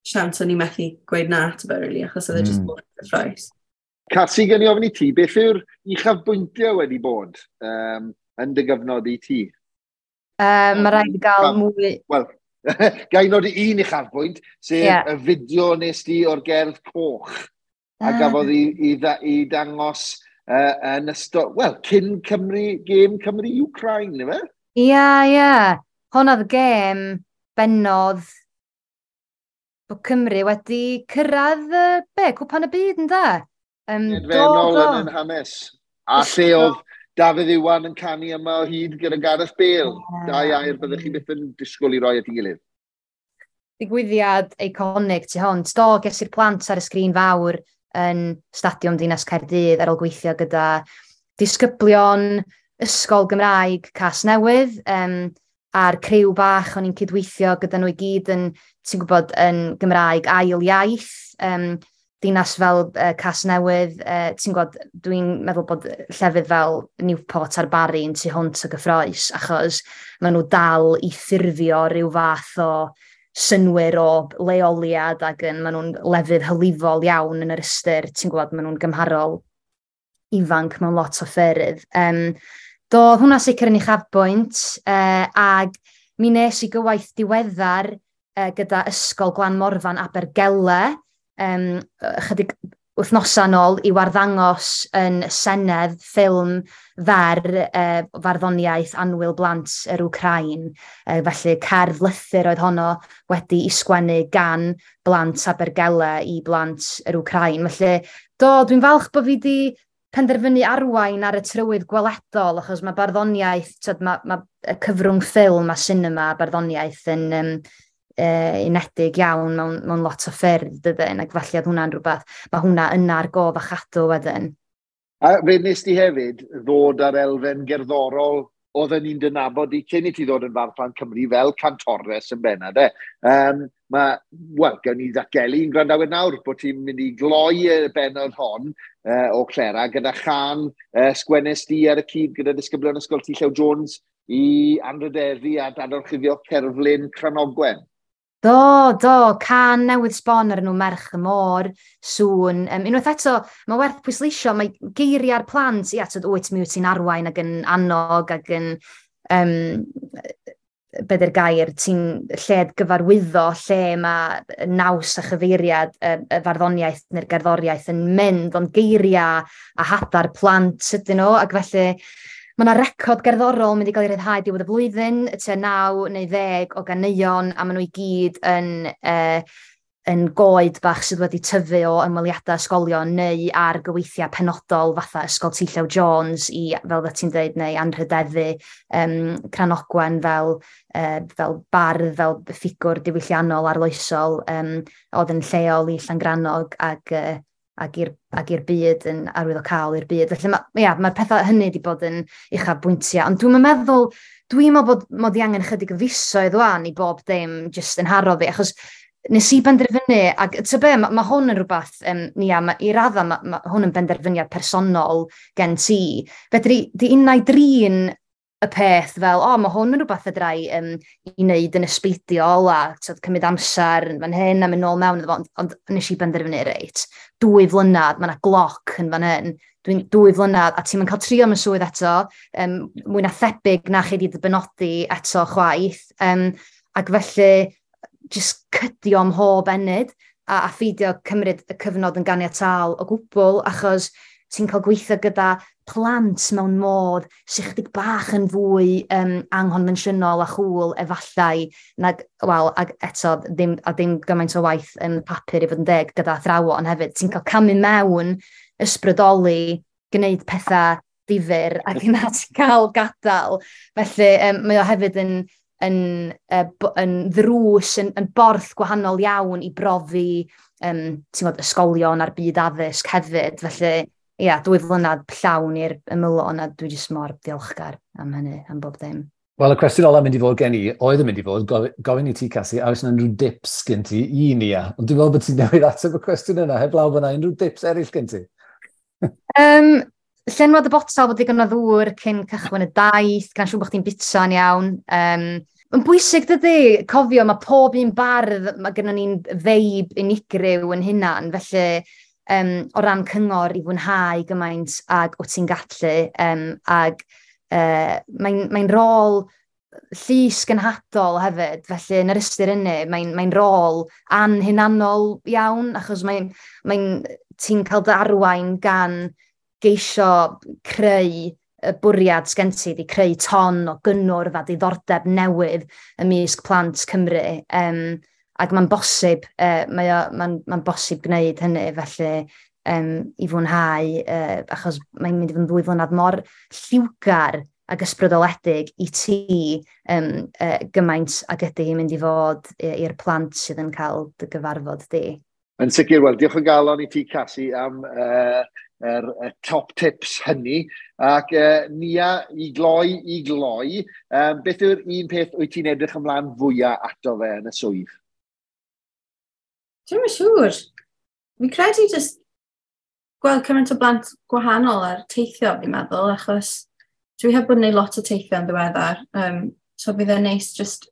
siawns o'n i methu gweud na ato fe, really, achos oedd e jyst mor gyffrous. Casi, gen i ofyn i ti, beth yw'r uchafbwyntiau wedi bod yn dy gyfnod i ti? Mae rhaid i gael mwy. Wel, ga i nodi un uchafbwynt, sef y fideo nes di o'r gerdd coch, a gafodd i dangos yn ystod, wel, cyn Cymru, gêm Cymru-Ukraine, ife? Ie, ie. Honna oedd y gêm bennodd bod Cymru wedi cyrraedd, be, Cwpan y Byd, ynde? Edfennol yn hanes. A lle oedd Dafydd Iwan yn canu yma o hyd gyda Gareth Bale. Dau air byddech chi byth yn disgwyl i roi at ei gilydd. Digwyddiad eiconig tu hwnt. Do, ges i'r plant ar y sgrin fawr yn Stadiwm Dinas Caerdydd ar ôl gweithio gyda disgyblion Ysgol Gymraeg Casnewydd, a'r criw bach o'n i'n cydweithio gyda nhw i gyd yn, ti'n gwybod, yn Gymraeg ail iaith, dinas fel Casnewydd, ti'n gwybod, dwi'n meddwl bod llefydd fel Newport a'r Barri yn tu hwnt o gyffrous, achos maen nhw dal i ffurfio rhyw fath o synwyr o leoliad ac yn, maen nhw'n lefydd hylifol iawn yn yr ystyr, ti'n gwybod, maen nhw'n gymharol ifanc mewn lot o ffyrdd. Do, hwnna sicr yn uchafbwynt, ag mi nes i gywaith diweddar gyda Ysgol Glan Morfan Abergele, ychydig Wythnosau nôl i warddangos yn Senedd ffilm fer farddoniaeth Annwyl Blant yr Wcrain. Felly cerdd lythyr oedd honno wedi i sgwennu gan blant Abergele i blant yr Wcrain. Felly, do, dwi'n falch bod fi wedi penderfynu arwain ar y trywydd gweledol, achos mae barddoniaeth, tyd, mae y cyfrwng ffilm a sinema barddoniaeth yn unedig iawn mewn lot o ffyrdd, dydyn, ac felly oedd hwnna'n rhywbeth, mae hwnna yna ar gof a chadw wedyn. A fe nes ti hefyd ddod ar elfen gerddorol oedden ni'n dynabod i cyn i ti ddod yn Fardd Plant Cymru fel cantores yn benna, de. Wel, gawn ni ddatgelu i'n gwrandawyr nawr bod ti'n mynd i gloi y bennod hon o Clera gyda chan sgwennes di ar y cyd gyda disgyblion Ysgol T. Llew Jones i anrhydeddu a dadorchuddio cerflun Cranogwen. Do, can newydd sbon ar enw Merch y Môr, Sŵn. Unwaith eto, mae werth pwysleisio, mae geiriau'r plant, ia, tyd, wyt, mi wyt ti'n arwain ac yn annog ac yn, be di'r gair, ti'n lled gyfarwyddo lle mae naws a chyfeiriad y farddoniaeth neu'r gerddoriaeth yn mynd, ond geiriau a hadau'r plant ydyn nhw, ac felly mae yna record gerddorol mynd i gael ei ryddhau diwedd y flwyddyn, tua 9 neu 10 o ganeuon, a maen nhw i gyd yn goed bach sydd wedi tyfu o ymweliadau ysgolion neu ar gyweithiau penodol fatha Ysgol T. Llew Jones i, fel dda ti'n dweud, neu anrhydeddu Cranogwen fel bardd, fel ffigwr diwylliannol arloesol oedd yn lleol i Llangrannog ac i'r byd yn arwyddocaol i'r byd. Felly mae'r pethau hynny wedi bod yn uchafbwyntiau. Ond dwi'n meddwl, dwi'n meddwl bod mod i angen chydig o fisoedd wan i bob dim jyst yn haro fi, achos nes i benderfynu, ac ty be, mae hwn yn rhywbeth, Nia, i radda, ma hwn yn benderfyniad personol gen ti. Fedri di unai drin y peth fel, o, mae hwn yn rhywbeth fedra i i wneud yn ysbeidiol a tyd, cymryd amser yn fan hyn a mynd nôl mewn iddo fo, ond nes i benderfynu, reit, 2 flynedd, mae yna gloc yn fan hyn, dwi'n 2 flynedd, a ti'n mynd cael trio am y swydd eto, mwy na thebyg na chi wedi dy benodi eto chwaith, ac felly, jyst cydio ym mhob ennyd, a pheidio cymryd y cyfnod yn ganiataol o gwbl, achos ti'n cael gweithio gyda plant mewn modd sy'n chydig bach yn fwy anghonfensiynol a chwl efallai, nag, wel, ag eto, ddim, a dim gymaint o waith yn papur i fod yn deg gyda athrawon hefyd. Ti'n cael camu mewn, ysbrydoli, gwneud pethau difyr, ac yna ti'n cael gadael. Felly, mae o hefyd yn ddrws, yn borth gwahanol iawn i brofi ti'n gwbod, ysgolion a'r byd addysg hefyd. Felly, ia, 2 flynedd llawn i'r ymylon, a dwi jyst mor ddiolchgar am hynny, am bob dim. Wel, y cwestiwn ola mynd i fod gen i, oedd yn mynd i fod, gofyn i ti, Casi, a oes yna unrhyw dips gen ti i ni, a? Ond dwi'n meddwl bod ti'n newid ateb y cwestiwn yna, heblaw bod yna unrhyw dips eraill gen ti? Llenwad y botel bod digon o ddŵr cyn cychwyn y daith, gan siŵr bod chdi'n bita'n iawn. Mae'n bwysig dydy, cofio, mae pob un bardd, mae gennym ni'n veib unigryw yn hunan, felly o ran cyngor i fwynhau gymaint ag wyt ti'n gallu, ag mae'n rôl llys genhadol hefyd, felly yn yr ystyr hynny, mae'n rôl anhunanol iawn, achos ti'n cael dy arwain gan geisio creu y bwriad sgen ti, di creu ton o gynnwrf a diddordeb newydd ymysg plant Cymru. Ac mae'n bosib, mae'n bosib gwneud hynny, felly i fwynhau, achos mae'n mynd i fod yn 2 flynedd mor lliwgar ac ysbrydoledig i ti gymaint ag ydy hi'n mynd i fod i'r plant sydd yn cael dy gyfarfod di. Yn sicr, wel, diolch o galon i ti, Casi, am y top tips hynny. Ac Nia, i gloi, beth yw'r un peth wyt ti'n edrych ymlaen fwyaf ato fe yn y swydd? Dwi'm yn siŵr. Fi'n credu jyst gweld cymaint o blant gwahanol ar teithio, fi'n meddwl, achos dwi heb bod yn neud lot o teithio yn ddiweddar. So bydd e'n neis just,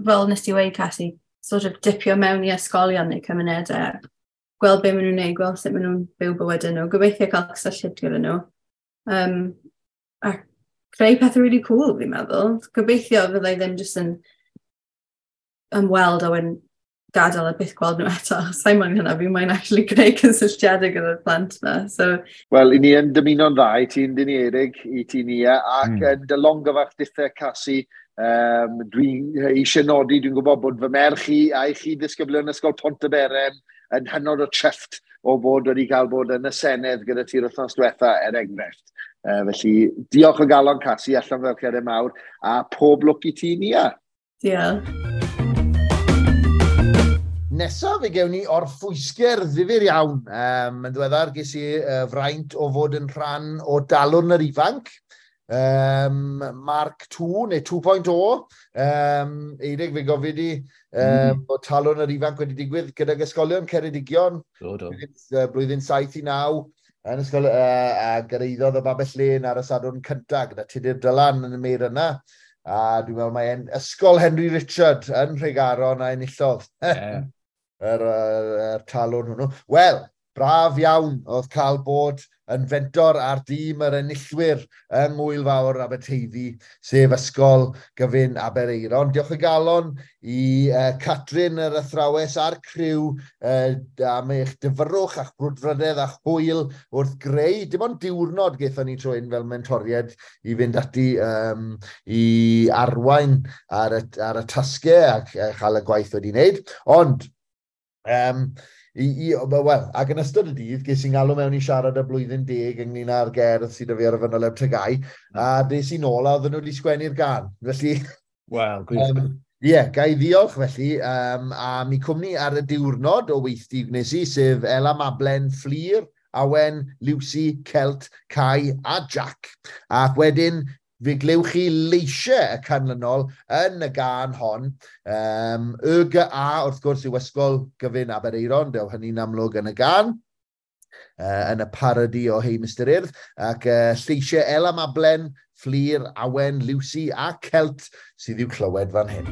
fel nes ti weud, Casi, sort of dipio mewn i ysgolion neu cymunedau, gweld be maen nhw'n neud, gweld sut maen nhw'n byw bywydau nhw, gobeithio cael cysylltiad gyda nhw. A creu pethau really cool, fi'n meddwl. Gobeithio fyddai ddim jyst yn ymweld a wedyn gadael a byth gweld nhw eto. Sa'n moyn hynna, fi moyn actually gwneud cysylltiadau gyda'r plant yma. So... Wel, i ni yn dymuno'n dda i ti'n dyn ni Erig, i ti Nia, ac yn dy longyfarch dithau Casi, dwi'n eisiau nodi, dwi'n gwybod bod fy merch i a'i chi ddisgyblion Ysgol Pontyberem yn hynod o trefft o bod wedi cael bod yn y Senedd gyda ti'r wythnos diwetha, er enghraifft. Felly, diolch o galon Casi, allan fel cerdyn mawr, a pob lwc i ti, Nia. Diolch. Nesaf fe gewn ni orffwysger ddifyr iawn. Yn ddiweddar ges i fraint o fod yn rhan o Dalwrn yr Ifanc, Mark 2 neu 2.0. Eirig, fe gofyd i bod Talwrn yr Ifanc wedi digwydd gydag ysgolion Ceredigion. Do, do. Blwyddyn 7 i 9 yn ysgol, a gyrhaeddodd y Babell Lên ar y Sadwrn cyntaf gyda Tudur Dylan yn y meir yna. A dwi'n meddwl mae Ysgol Henry Richard yn Nhregaron a enillodd. Yeah. Yr talwrn hwnnw. Wel, braf iawn oedd cael bod yn fentor ar dîm yr enillwyr yng Ngŵyl Fawr Aberteifi, sef Ysgol Gyfun Aberaeron. Diolch o galon i Catrin yr athrawes a'r criw am eich dyfrwch a'ch brwdfrydedd a'ch hwyl wrth greu. Dim ond diwrnod gaethon ni tro hyn fel mentoried i fynd ati i arwain ar y tasgau ac chael y gwaith wedi wneud. Ond, wel, ac yn ystod y dydd, ges i'n galw mewn i siarad y blwyddyn 10 ynglyn â'r gerdd sydd 'da fi ar y fanyleb TGAU, a des i nôl a oedden nhw wedi sgwennu'r gân. Felly, Wel, gwych. Ie, ga i ddiolch felly am i cwmni ar y diwrnod o weithdy gwnes i, sef Ela Mablen, Fflur, Awen, Lucy, Celt, Kai a Jack. Ac wedyn, fe glywch chi leisiau y canlynol yn y gân hon. YGA, wrth gwrs, yw Ysgol Gyfun Aberaeron, dew hynny'n amlwg yn y gân, yn y parody o Hei Mr Urdd, ac lleisiau Ela Mablen, Fflur, Awen, Lucy a Celt sydd i'w clywed fan hyn.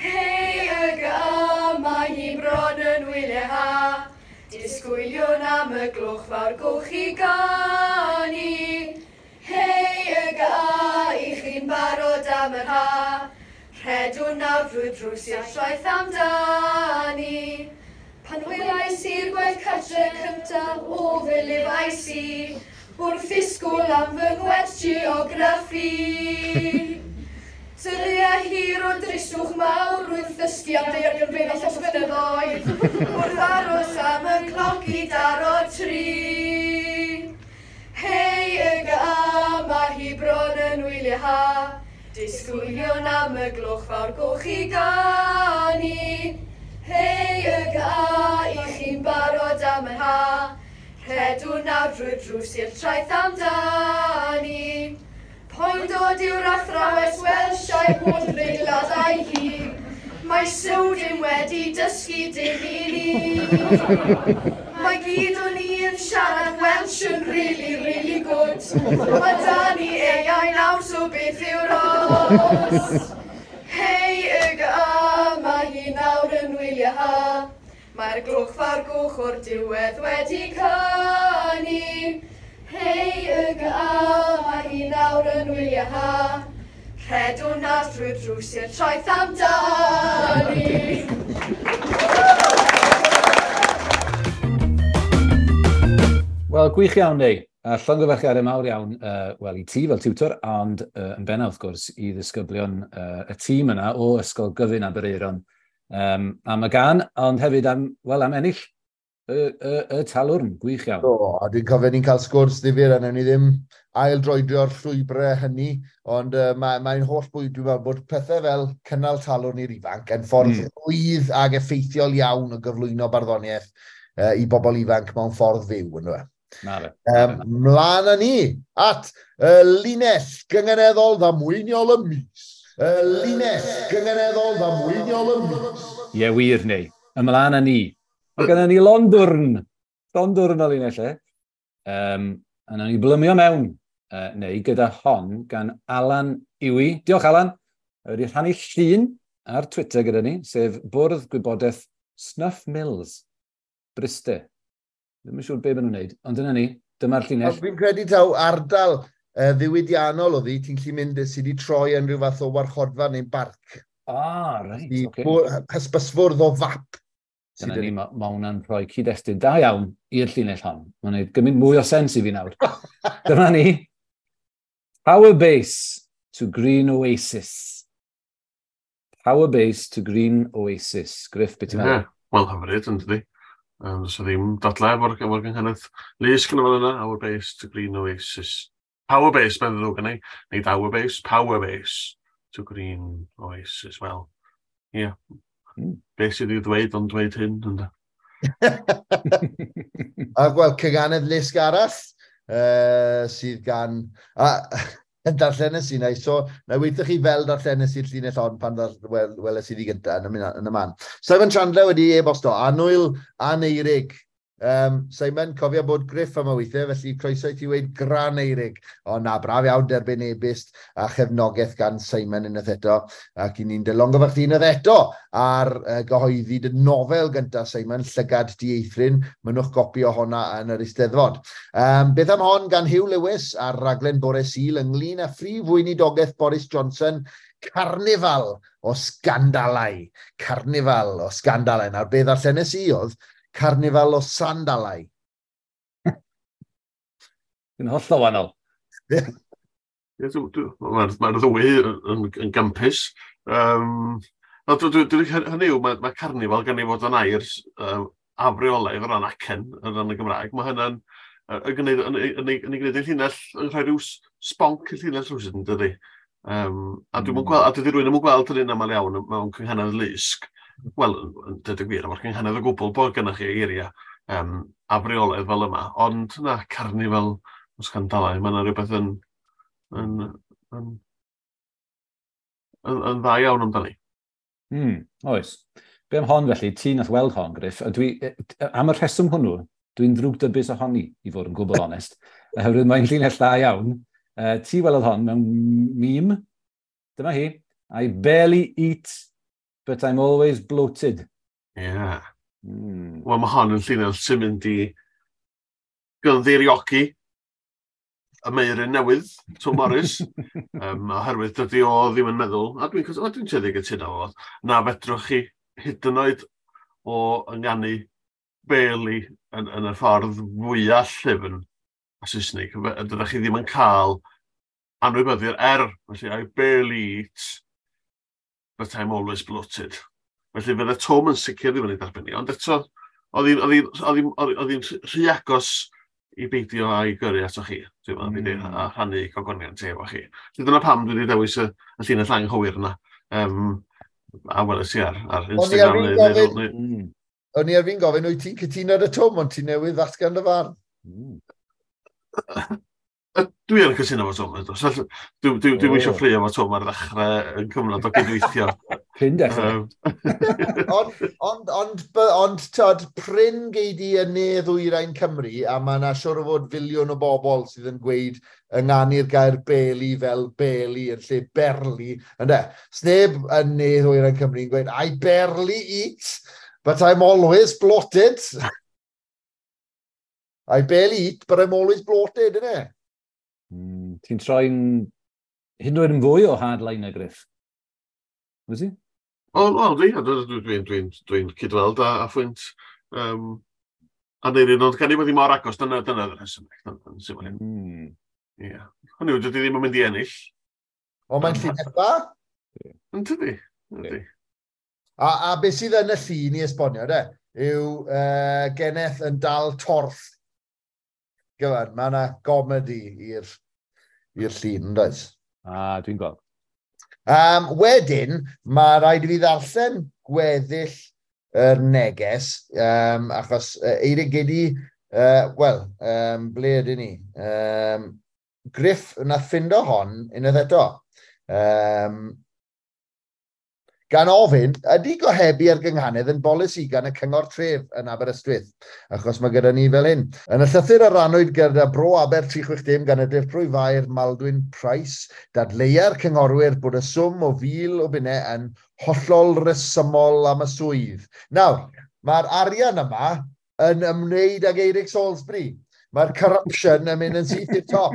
Hei YGA, mae hi bron yn wyliau ha. Disgwyliwn am y gloch fawr goch i ganu. Hei YGA, i chi'n barod am yr ha. Rhedwn nawr drwy'r drws i'r traeth amdani. Pan welais i'r gwaith cartre cyntaf o fe lefais i, wrth ddisgwyl am fy ngwers geograffi. Dyddiau hir o dristwch mawr wrth ddysgu am daeargrynfeydd a llosgfynyddoedd, wrth aros am y cloc i daro 3. Hei YGA, mae hi bron yn wyliau ha. Disgwyliwn am y gloch fawr goch i ganu. Hei YGA, i chi'n barod am yr ha. Rhedwn nawr drwy'r drws i'r traeth amdani. Poen dod yw'r athrawes Welsh a'i holl reiladau hi. Mae Sewdyn wedi dysgu dim i ni. Mae gyd o'n i yn siarad Welsh yn really, really good. Mae da ni AI nawr, so beth yw'r os? Hei YGA, mae hi nawr yn wyliau ha. Mae'r gloch fawr goch o'r diwedd wedi canu. Hei YGA, mae hi nawr yn wyliau ha. Rhedwn nawr drwy'r drws i'r traeth amdani. Wel, gwych iawn, Neu. A llongyfarchiadau mawr iawn, wel, i ti fel tiwtor, ond yn bennaf, wrth gwrs, i ddisgyblion y tîm yna o Ysgol Gyfun Aberaeron am y gân, ond hefyd am, wel, am ennill y talwrn, gwych iawn. Do, a dwi'n cofio ni'n cael sgwrs ddifyr, a wnawn ni ddim ail-droedio'r llwybrau hynny, ond mae'n holl bwyd, dwi'n meddwl, bod pethau fel cynnal talwrn i'r ifanc yn ffordd rhwydd ag effeithiol iawn o gyflwyno barddoniaeth i bobl ifanc mewn ffordd fyw, yndyfe? Na fe. Mlaen â ni at y linell gynganeddol ddamweiniol y mis. Y linell gynganeddol ddamweiniol y mis. Ie, wir, Neu. Ymlaen â ni. Mae gennym ni londwrn o linell, e. A nawn ni blymio mewn, neu gyda hon gan Alan Iwi. Diolch, Alan. Wedi rhannu llun ar Twitter gyda ni, sef Bwrdd Gwybodaeth Snuff Mills, Bryste. Ddim yn siŵr be maen nhw'n wneud, ond dyna ni, dyma'r llinell. Fi'n credu taw ardal ddiwydiannol oedd hi, ti'n gallu mynd sydd wedi troi yn rhyw fath o warchodfa neu'n barc. Ah, reit, oce. Okay. Hysbysfwrdd o fap. Dyna ni, mae hwnna'n rhoi cyd-destun da iawn i'r llinell hon. Mae'n gwneud gymaint mwy o sens i fi nawr. Dyma ni. Power base to Green Oasis. Power base to Green Oasis. Griff, beth ti'n meddwl? Yeah. Wel, hyfryd, yn dydi. Does ddim dadlau efo'r efo gynghanedd lusg yn y fan yna. Our base to Green Oasis. Power base, mae'n ddrwg yn ei. Nid our base, power base to Green Oasis. Wel, ie. Yeah. Be sydd i'w ddweud ond dweud hyn, ynddo? A wel, cyganedd lusg arall sydd gan... A, yn darllenes i, na i so, na i weithio chi fel darllenes i'r llinell hon pan weles i ddi gyntaf yn y man. Simon Chandler wedi e-bosto, Anwyl Aneirig. Simon, cofio bod Griff am y weithiau, felly croeso i ti weud Graneirig. O na, braf iawn derbyn e-byst a chefnogaeth gan Simon unwaith eto. Ac i ni'n dylongyfarch ti unwaith eto ar gyhoeddi dy nofel gyntaf, Simon, Llygad Dieithryn. Mynnwch gopi o honna yn yr Eisteddfod. Beth am hon gan Huw Lewis ar raglen Bore Sul ynglyn â phrif weinidogaeth Boris Johnson, Carnifal o sgandalau. Carnifal o sgandalau. Nawr, beth ddarllenes i oedd Carnifal o sandalau. Yn hollol wahanol. Mae'r ma ddwy yn gampus. Hynny yw, mae carnifal gan ei fod yn air afreolaidd o ran acen, o ran y Gymraeg. Mae hynna'n yn gwneud yn ei gwneud ei llinell, yn rhoi rhyw sbonc i'r llinell rhywsut, yn dydi. A dwi'm yn gweld, a dydy rhywun ddim yn gweld hynny'n aml iawn mewn cynghanedd lusg. Wel, yn dweud y gwir, efo'r cynghanedd o gwbl bod gennych chi eiriau afreolaidd fel yma, ond na, carnifal o sgandalau, mae yna rhywbeth yn dda iawn amdani. Oes. Be am hon felly, ti nath weld hon, Griff, a dwi, am y rheswm hwnnw, dwi'n ddrwgdybus ohoni, i fod yn gwbl onest, oherwydd mae'n llinell dda iawn. Ti welodd hon mewn meme, dyma hi, I barely eat, but I'm always bloated. Yeah. Wel, mae hon yn llinell sy'n mynd i gynddeiriogi y meiryn newydd, Tom Morris, oherwydd dydy o ddim yn meddwl, a dwi'n tueddu gytuno fo, na fedrwch chi hyd yn oed o ynganu barely yn y ffordd fwyaf llyfn a Saesneg, dydych chi ddim yn cael anwybyddu'r R, felly I barely eat, but I'm always bloated. Felly fydde Tom yn sicr ddim yn ei dderbyn ni, ond eto, oedd hi'n rhy agos i beidio a'i gyrru ato chi, dwi'n meddwl, a rhannu gogoniant efo chi. Felly dyna pam dwi wedi dewis y llinell anghywir yna, a weles i ar Instagram. O'n i ar fi'n gofyn, wyt ti'n cytuno ar y Tom, ond ti'n newydd ddatgan dy farn? Dwi yn cytuno efo Tom. Dwi'm eisiau ffraeo efo Tom ar ddechrau yn cyfnod o gydweithio. Prin dechrau. Ond, tod, prin gei di yn ne ddwyrain Cymru, a mae yna siŵr o fod filiwn o bobl sydd yn gweud ynganu'r gair beli fel beli yn lle berli. Ynde, sneb yn ne ddwyrain Cymru yn gweud, I barely eat, but I'm always bloated. I barely eat, but I'm always bloated, innit? Ti'n troi'n hyd yn oed yn fwy o hardliner, Griff? Wyt ti? O, dwi'n cydweld a phwynt Aneirin, ond gan i bod hi mor agos, dyna'r rhesymeg. Ie. Hynny yw, dydy ddim yn mynd i ennill. O, mae'n llinell dda? Yn tydi. A beth sydd yn y llun i esbonio, de, yw geneth yn dal torth. Gyfan, mae yna gomedi i'r llun, yn does? A, dwi'n gweld. Wedyn, mae rhaid i fi ddarllen gweddill yr neges, achos Eirig Gedi, ble ydyn ni? Griff nath ffindo hon unwaith eto. Gan ofyn, ydy gohebu ar gynghanedd yn bolisi gan y Cyngor Tref yn Aberystwyth? Achos mae gyda ni fel hyn. Yn y llythyr a rannwyd gyda Bro Aber 360 gan y Dirprwy Faer Maldwyn Price, dadleua'r cynghorwyr bod y swm o 1,000 o bunnau yn hollol resymol am y swydd. Nawr, mae'r arian yma yn ymwneud ag Eirig Salisbury. Mae'r corruption yn mynd yn syth i'r top.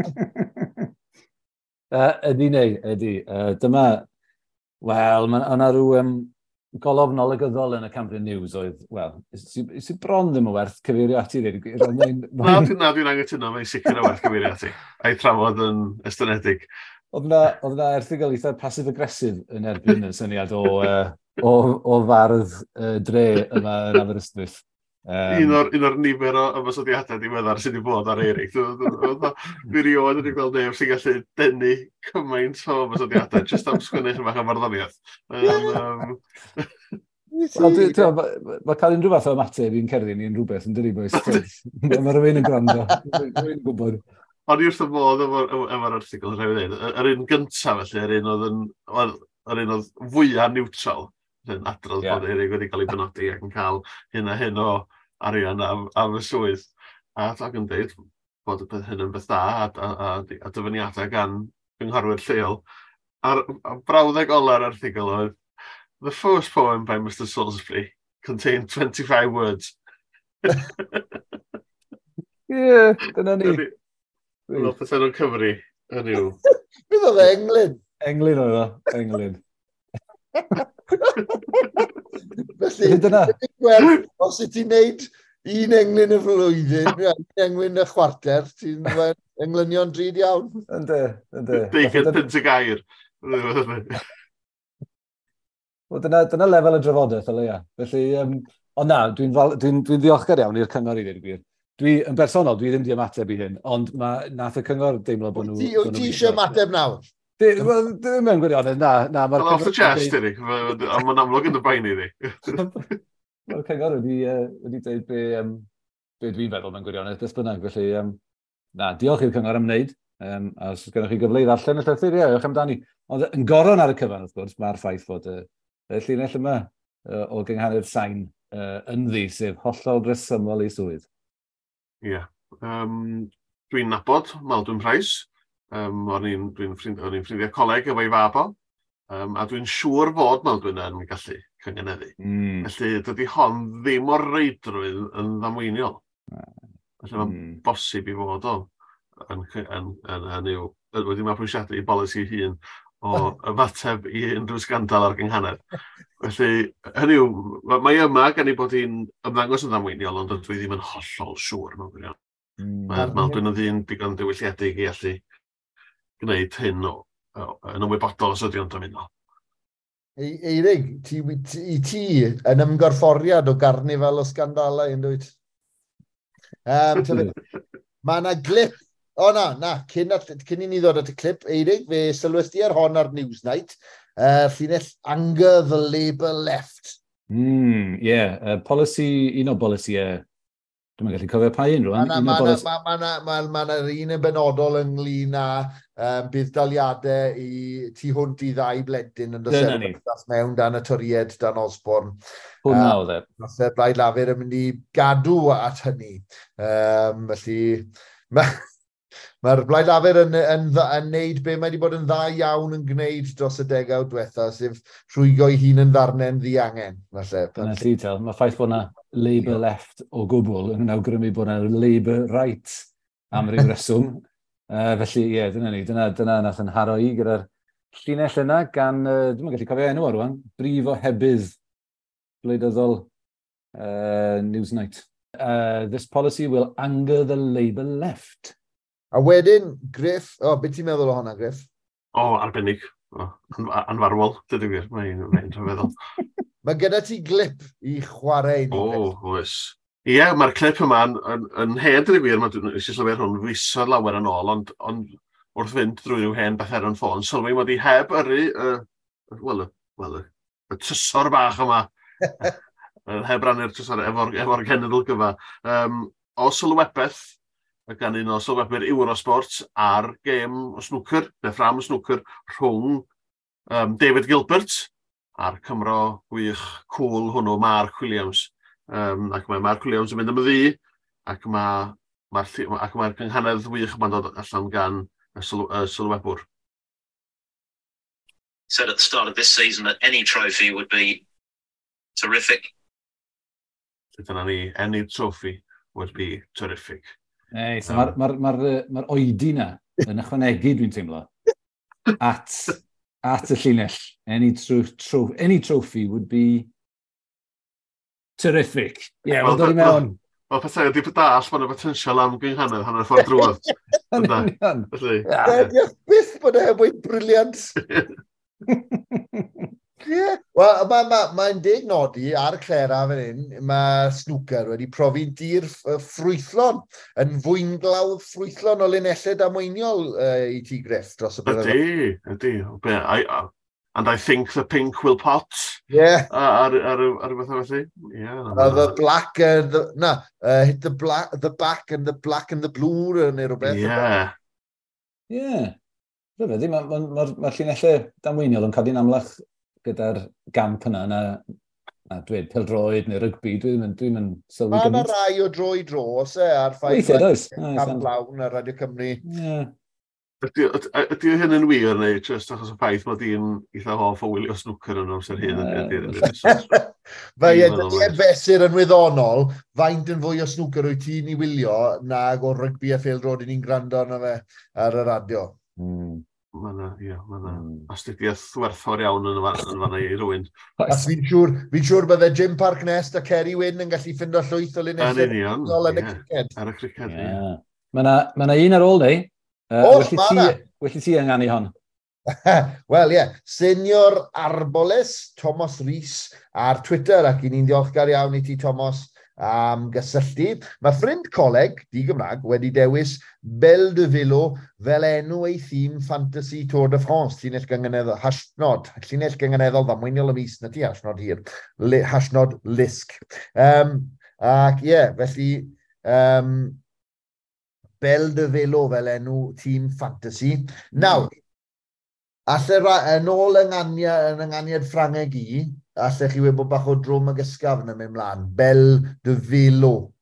Ydy neu, ydy. Dyma, wel, mae yna rhyw golofn olygyddol yn y Cambrian News oedd, wel, sy'n bron ddim yn werth cyfeirio ati, dweud y gwir. Na, dwi'n anghytuno, mae'n sicr o werth cyfeirio ati. A'i trafod yn estynedig. Oedd na erthygl eitha passive-aggressive yn erbyn y syniad o fardd dre yma yn Aberystwyth. Un o'r nifer o ymosodiadau diweddar sydd wedi bod ar Eirig. Dwi rioed wedi gweld neb sy'n gallu denu cymaint o ymosodiadau jyst am sgwennu chydig bach o farddoniaeth. Wel, mae cael unrhyw fath o ymateb i'n cerddi ni'n rhywbeth yn dydi, boys. Mae rhywun yn gwrando. Rwy'n gwybod. O'n i wrth y modd efo'r erthygl, rhaid i ddweud. Yr un gyntaf, felly, yr un oedd fwyaf neutral, yn adrodd bod Eirig wedi cael ei benodi ac yn cael hyn a hyn o arian am y swydd. A ac yn dweud bod y peth hyn yn beth da a dyfyniadau gan gynghorwyr lleol. A'r brawddeg ola'r erthygl oedd, "The first poem by Mr Salisbury contained 25 words." Ie, yeah, dyna ni. Fel pethau nhw'n cyfri, yn yw. Beth oedd e, englyn? Englyn oedd o, englyn. Felly, dyna. Gwerth, os wyt ti'n neud un englyn y flwyddyn, un englyn y chwarter, ti'n englynion drud iawn. Ynddi, ynddi. 20 punt y gair. Wel, dyna lefel y drafodaeth, o leia. Felly, ond na, dwi ddiolchgar iawn i'r cyngor i ddweud y gwir. Dwi, yn bersonol, dwi ddim di ymateb i hyn, ond ma, nath y cyngor deimlo bod nhw. Wyt ti eisiau ymateb nawr? Wel, ddim mewn gwirionedd, na. Na. Well, off the chest, Eric. Ond mae'n amlwg yn dy boeni di. Mae'r cyngor wedi dweud be dwi'n feddwl mewn gwirionedd, beth bynnag. Felly, na, diolch i'r cyngor am wneud. A os gennych chi gyfle i ddarllen y llythyr, ie, ewch amdani. Ond yn goron ar y cyfan, wrth gwrs, mae'r ffaith fod y llinell yma o gynghanedd Sain ynddi, sef hollol resymol ei swydd. Ie. Yeah. Dwi'n nabod Maldwyn Price. O'n i'n ffrindiau coleg efo'i fab o. A dwi'n siŵr fod Maldwyn yn gallu cyngeneddu. Felly dydy hon ddim o reidrwydd yn ddamweiniol. Felly mae'n bosib i fod o yn yw, wedi mabwysiadu i bolisi hun o ymateb i unrhyw sgandal ar gynghanedd. Felly, hynny yw, mae yma gan ei bod hi'n ymddangos yn ddamweiniol, ond dwi ddim yn hollol siŵr mewn gwirionedd. Mae Maldwyn yn ddyn digon diwylliedig i allu gwneud hyn o yn ymwybodol os ydy o'n dymuno. Eirig, i ti yn ymgorfforiad o garnifal o sgandalau yn dwyt? Mae yna glip. O na, na, cyn i ni ddod at y clip, Eirig, fe sylwes di ar hon ar Newsnight, llinell "Anger the Labour Left". Yeah. Polisi, un o bolisiau, dwi'n gallu cofio pa un rwan. Mae ma un yn benodol ynglyn â budd-daliadau i tu hwnt i ddau blentyn yn dod mewn dan y Torïaid, dan Osborne. Hwna oedd e. Nath y Blaid Lafur yn mynd i gadw at hynny. Felly, mae'r Blaid Lafur yn neud be mae wedi bod yn dda iawn yn gwneud dros y degawd diwetha, sef rhwygo ei hun yn ddarnau'n ddiangen. Falle. Dyna ti, tel. Mae ffaith bod yna Labour Left o gwbl yn awgrymu bod yna Labour Right am ryw reswm. Felly, ie, yeah, dyna ni. Dyna nath yn haro i gyda'r llinell yna gan, dwi'n gallu cofio enw ar rwan, brif ohebydd gwleidyddol Newsnight. "This policy will anger the Labour Left." A wedyn, Griff, o, oh, beth ti'n meddwl o hwnna, Griff? O, oh, arbennig. Oh, anfarwol, dydw i wir. Mae'n rhyfeddol. Mae gyda ti glip i chwarae ni. O, oh, oes. Ie, yeah, mae'r clip yma yn hen, dydw i wir. Mae nes i sylwi ar hwn fisoedd lawer yn ôl, ond wrth fynd drwy rhyw hen beth ar yn ffôn, sylwi mod i heb yrru, wel, well, y trysor bach yma, heb rannu'r trysor efo genedl gyfa. O sylwebaeth gan un o sylwebwyr Eurosport ar gêm o snwcer, neu ffram o snwcer, rhwng David Gilbert a'r Cymro gwych cool hwnnw, Mark Williams. Ac mae Mark Williams yn mynd am y ddu, ac mae'r cynghanedd wych yma'n dod allan gan y sylwebwr. Said at the start of this season that any trophy would be terrific. Dyna ni, "Any trophy would be terrific." Ei, so mae'r ma, ma, ma, ma oedi na yn ychwanegu, dwi'n teimlo. At y llinell. Any trophy would be terrific. Ie, yeah, wel, dod i mewn. Wel, pethau ydy dall, mae'n y potensial am gynghanedd hanner ffordd drwodd. Yn union. Felly. Diolch byth bod e heb weud brilliant. Ie. Wel, mae'n ma deg nodi ar Clera fan hyn, mae snooker wedi profi'n dir ffrwythlon, yn fwynglawdd ffrwythlon o linellau damweiniol i ti, Griff, dros y blynyddoedd. Ydy, ydy. And I think the pink will pot. Yeah. Ar rhywbeth felly. Yeah. The black and the, na, hit the black, the back and the black and the blue neu rhywbeth. Yeah. Yeah. Rhyfedd, mae'r ma llinellau damweiniol yn codi'n amlach gyda'r gamp yna, na dweud pêl-droed neu rygbi, dwi ddim yn sylwi Mae yna gymaint. rai o dro i dro, oes e, a'r ffaith Weithiau, does? Cam Lawn ar Radio Cymru. Yeah. Ydy hyn yn wir neu just achos y ffaith mod i'n eitha hoff o wylio snwcer yn amser hyn? Fe ie, dydy e fesur yn wyddonol, faint yn fwy o snwcer wyt ti'n ei wylio nag o rygbi a phêl-droed i ni'n gwrando arno fe ar y radio. Mae yna, ie, mae yna astudiaeth werthfawr iawn yn fanna i rywun. A fi'n siŵr, fi siŵr bydde Jim Parc Nest a Kerry Wynn yn gallu ffindo llwyth o linellau Yn union, yn y criced. Ar y criced, ie. Mae yna un ar ôl ni. Oes, ma' 'na. Well i ti ynganu hon. Wel, ie. Yeah. Senior Arboles, Thomas Rees ar Twitter, ac i ni'n ddiolchgar iawn i ti, Thomas, am gysylltu. Mae ffrind coleg, di Gymraeg, wedi dewis Belle de Velo fel enw ei thîm Fantasy Tour de France, llinell gynganeddol, hashnod, llinell gynganeddol ddamweiniol y mis, na ti hashnod hir, hashnod Lisg. Ac ie, yeah, felly, Belle de Velo fel enw tîm Fantasy. Nawr, alle yn ôl yng ynganiad Ffrangeg i, allech chi wybod bach o drwm ag ysgafn yn mynd mlaen. Belle de Velo.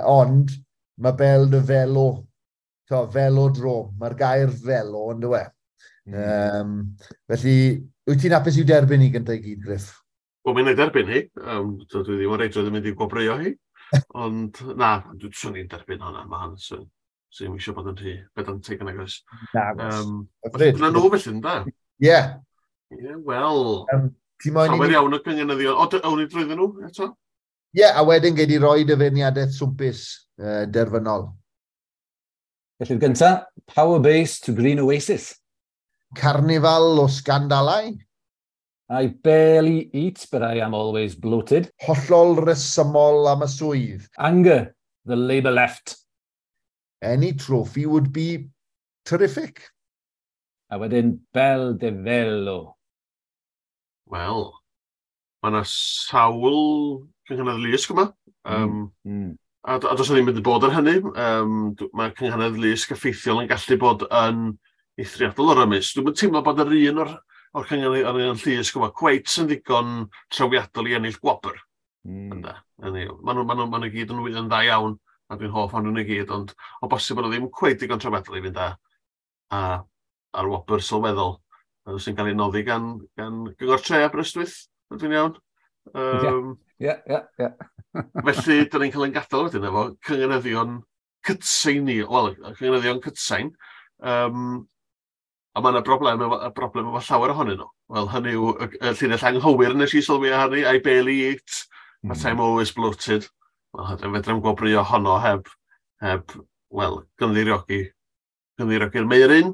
Ond mae Belle de Velo, to, velodrome, mae'r gair velo yn dywe. Felly, wyt ti'n hapus i'w derbyn hi gyntaf i gyd, Griff? Wel, mi'n ei derbyn hi. Dwi ddim yn reidrwydd yn mynd i gwobrwyo hi. Ond na, dwi'n swn i'n derbyn hwnna. Mae hwn, swn i'n eisiau bod yn rhy pedantig yn agos. Na, Dyna nhw felly, ynda? Ie. Ie, wel. Ti moyn i Llawer ni iawn o gynganeddion. O, awn ni drwyddyn nhw eto? Ie, a wedyn gei di roi dy feirniadaeth swmpus derfynol. Felly'r gynta, Power Base to Green Oasis. Carnifal o sgandalau. I barely eat, but I am always bloated. Hollol resymol am y swydd. Anger, the Labour left. Any trophy would be terrific. A wedyn, Belle de Velo. Wel, mae yna sawl cynghanedd lusg yma. A does 'na ddim wedi bod ar hynny. Mae cynghanedd lusg effeithiol yn gallu bod yn eithriadol o rymus. Dwi'n teimlo bod yr un o'r cynghanedd llusg yma cweit yn ddigon trawiadol i ennill gwobr. Maen nhw gyd yn dda iawn, a dwi'n hoff o'n nhw i gyd, ond o bosib bod nhw ddim cweit digon trawiadol i fynd ar wobr sylweddol sy'n cael ei noddi gan Gyngor Tre Aberystwyth, ydw i'n iawn? Ie. Felly, dyn ni'n cael ein gadael wedyn efo cynganeddion cytsain ni, wel, cynganeddion cytsain, a mae yna broblem efo llawer ohonyn nhw. Wel, hynny yw y llinell anghywir nes i sylwi ar hynny, I barely eat, but I'm always bloated. Wel, fedra i'm gwobrwyo honno heb, wel, gynddeiriogi'r Meiryn.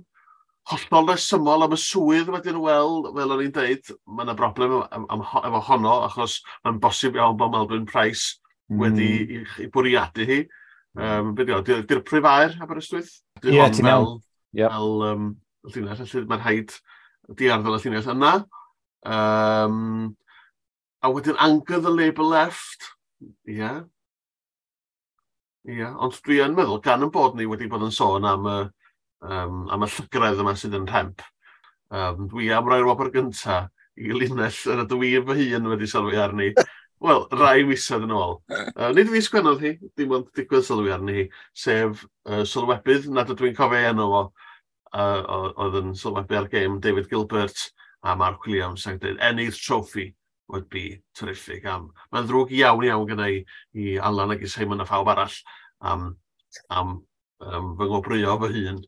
Hollol resymol am y swydd wedyn, wel, fel o'n i'n deud, mae yna broblem efo honno, achos mae'n bosib iawn bod Melvyn Price wedi i bwriadu hi. Be di o, Dirprwy Faer Aberystwyth? Ie, ti'n iawn. Fel llinell, felly mae'n rhaid diarddel y llinell yna. A wedyn Anger the Labour Left. Ie. Ie, ond dwi yn meddwl, gan yn bod ni wedi bod yn sôn am y llygredd yma sydd yn rhemp. Dwi am roi'r wobr gynta i linell yr ydw i fy hun wedi sylwi arni. Wel, rai misoedd yn ôl. Nid fi sgwennodd hi, dim ond digwydd sylwi arni hi, sef sylwebydd nad ydw i'n cofio ei enw fo, oedd yn sylwebu ar gêm David Gilbert a Mark Williams ac dweud, any trophy would be terrific. Mae'n ddrwg iawn iawn gyda i Alan ac i Simon a phawb arall am fy ngwobrwyo fy hun.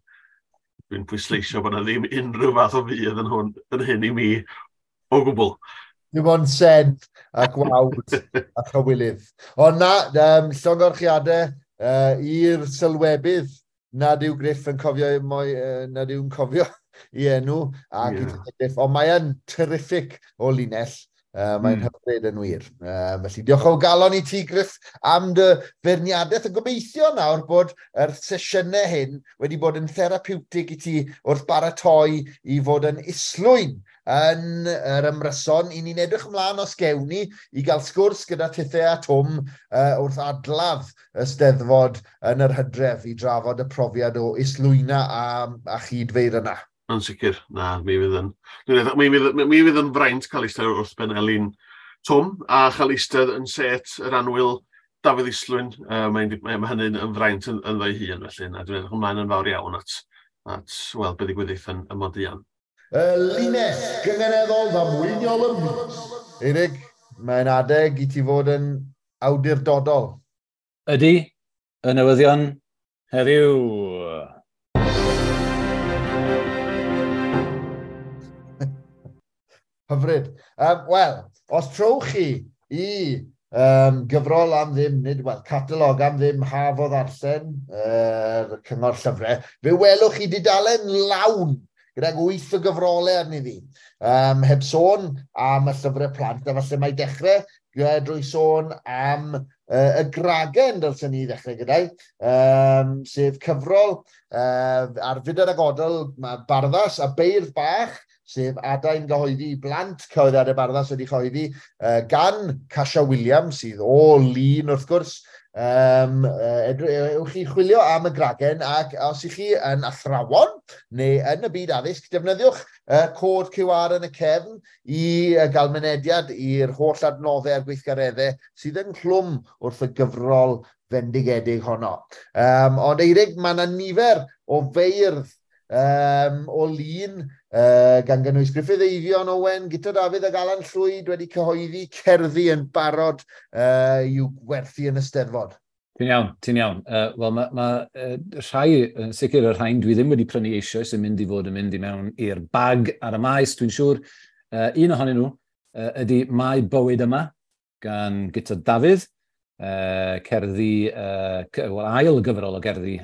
Dwi'n pwysleisio bod yna ddim unrhyw fath o fudd yn hwn, yn hyn i mi o gwbl. Dim ond sen a gwawd a chywilydd. Ond na, llongyfarchiadau i'r sylwebydd nad yw Griff yn cofio, moi, nad yw'n cofio i enw ac yeah. Griff, ond mae yn terrific o linell. Mae'n hyfryd yn wir. Felly diolch o galon i ti, Griff, am dy feirniadaeth. A gobeithio nawr bod yr sesiynau hyn wedi bod yn therapiwtig i ti wrth baratoi i fod yn islwyn yn yr ymryson. I ni'n edrych ymlaen os gewn ni i gael sgwrs gyda Tithe a Twm wrth adladd y Steddfod yn yr hydref i drafod y profiad o islwyna a chyd-feirdd yna. Yn sicr, na, mi fydd yn. Mi fydd yn fraint cael eistedd wrth ben Elin Twm a chael eistedd yn set yr annwyl Dafydd Islwyn. Mae hynny'n yn fraint ynddo'i hun, felly na, dwi'n edrych ymlaen yn fawr iawn at weld beth ddigwyddith yn Modian. Y linell gynganeddol ddamweiniol y mis. Eirig, mae'n adeg i ti fod yn awdurdodol. Ydy, y newyddion heddiw. Hyfryd. Wel, os trowch chi i gyfrol am ddim, nid, wel, catalog am ddim Haf o Ddarllen, Cyngor Llyfrau, fe welwch chi dudalen lawn gydag 8 o gyfrolau arni ddi. Heb sôn am y llyfrau plant, a falle mae dechrau drwy sôn am y Gragen, dylsen ni ddechrau gyda'i, sef cyfrol ar Fydr ag Odl, mae Barddas a Beirdd Bach, sef adain gyhoeddi i blant cyhoeddiadau Barddas wedi chyhoeddi gan Casia Williams, sydd o Lun wrth gwrs. Ewch chi chwilio am y Gragen, ac os ych chi yn athrawon neu yn y byd addysg, defnyddiwch cod QR yn y cefn i gael mynediad i'r holl adnoddau a'r gweithgareddau sydd ynghlwm wrth y gyfrol fendigedig honno. Ond Eirig, mae yna nifer o feirdd o Lun, gan gynnwys Gruffydd Eifion Owen, Guto Dafydd ac Alan Llwyd wedi cyhoeddi cerddi yn barod i'w gwerthu yn y Steddfod. Ti'n iawn, ti'n iawn. Wel, mae rhai, yn sicr y rhain dwi ddim wedi prynu eisoes yn mynd i fod yn mynd i mewn i'r bag ar y maes, dwi'n siŵr. Un ohonyn nhw ydy Mae Bywyd Yma gan Guto Dafydd, cerddi, wel, ail gyfrol o gerddi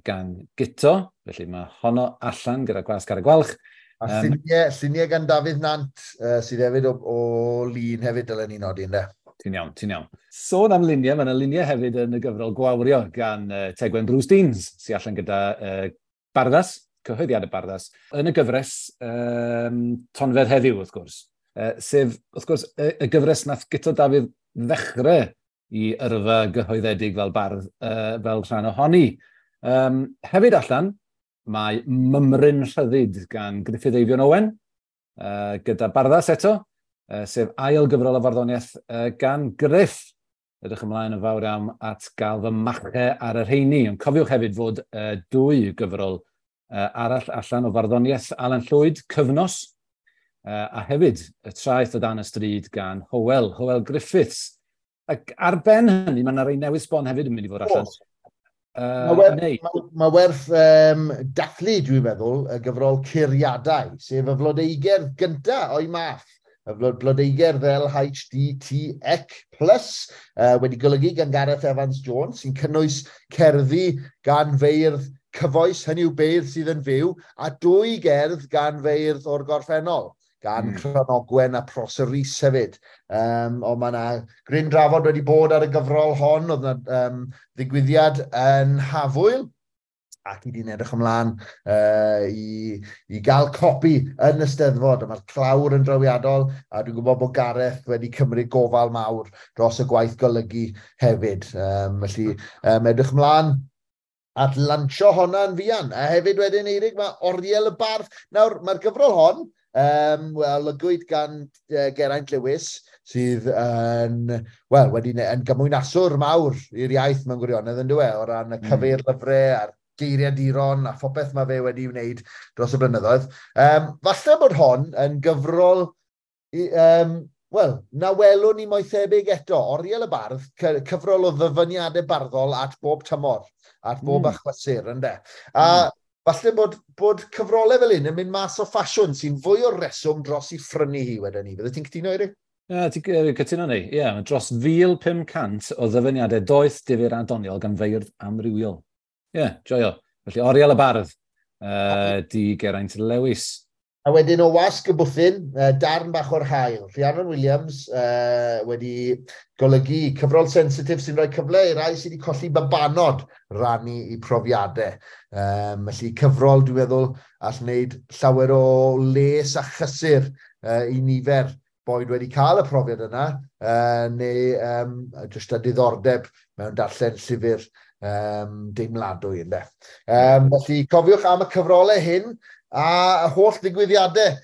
gan Guto, felly mae honno allan gyda Gwasg Ar y Gwalch. A lluniau gan Dafydd Nant, sydd hefyd o Lun hefyd, dylen ni nodi, ynde? Ti'n iawn, ti'n iawn. Sôn am luniau, mae yna luniau hefyd yn y gyfrol Gwawrio gan Tegwen Bruce Deans, sy'n allan gyda Barddas, cyhoeddiad y Barddas, yn y gyfres Tonfedd Heddiw, wrth gwrs. Sef, wrth gwrs, y gyfres nath Guto Dafydd ddechrau i yrfa gyhoeddedig fel bardd, fel rhan ohoni. Hefyd allan, mae Mymryn Rhyddid gan Gruffydd Eifion Owen, gyda Barddas eto, sef ail gyfrol o farddoniaeth gan Griff. Edrych ymlaen yn fawr iawn at gael fy mache ar y rheini. Ond cofiwch hefyd fod dwy gyfrol arall allan o farddoniaeth Alan Llwyd, Cyfnos, a hefyd Y Traeth o Dan y Stryd gan Hywel Griffiths. Ac ar ben hynny, mae yna rei newydd sbon hefyd yn mynd i fod allan. Mae werth dathlu, dwi'n meddwl, y gyfrol Curiadau, sef y flodeugerdd gyntaf o'i math. Y blodeugerdd LHDTEC+, wedi golygu gan Gareth Evans Jones, sy'n cynnwys cerddi gan feirdd cyfoes, hynny yw beirdd sydd yn fyw, a dwy gerdd gan feirdd o'r gorffennol, gan Cranogwen a Prosser Rees hefyd. Ond mae yna gryn drafod wedi bod ar y gyfrol hon, oedd yna ddigwyddiad yn Hafwyl, ac i di'n edrych ymlaen i gael copi yn y Steddfod. A mae'r clawr yn drawiadol, a dwi'n gwybod bod Gareth wedi cymryd gofal mawr dros y gwaith golygu hefyd. Felly, edrych ymlaen at lansio honna'n fuan. A hefyd wedyn, Eirig, mae Oriel y Bardd. Nawr, mae'r gyfrol hon, wel, olygwyd gan Geraint Lewis, sydd yn, wel, wedi yn gymwynaswr mawr i'r iaith mewn gwirionedd, yn dyw e, o ran y cyfeirlyfrau a'r geiriaduron a phopeth mae fe wedi wneud dros y blynyddoedd. Falle bod hon yn gyfrol, wel, na welwn ni mo'i thebyg eto. Oriel y Bardd, cyfrol o ddyfyniadau barddol at bob tymor, at bob achlysur, ynde. A Falle bod cyfrolau fel un yn mynd mas o ffasiwn sy'n fwy o reswm dros i phrynu hi wedyn ni. Bydde ti'n cytuno, Eirig? Ie, ti'n cytuno ni. Ie, yeah, dros 1,500 o ddyfyniadau doeth, difyr a doniol gan feirdd amrywiol. Ie, yeah, joio. Felly, Oriel y Bardd, di Geraint Lewis. A wedyn o wasg y bwthyn, darn bach o'r haul. Rhiannon Williams wedi golygu cyfrol sensitif sy'n rhoi cyfle i rai sydd wedi colli babanod rannu i profiadau. Felly cyfrol, dwi'n meddwl, all wneud llawer o les a chysur i nifer boed wedi cael y profiad yna, neu jyst a diddordeb mewn darllen llyfr deimladwy. Ynde. Felly cofiwch am y cyfrolau hyn, a y holl ddigwyddiadau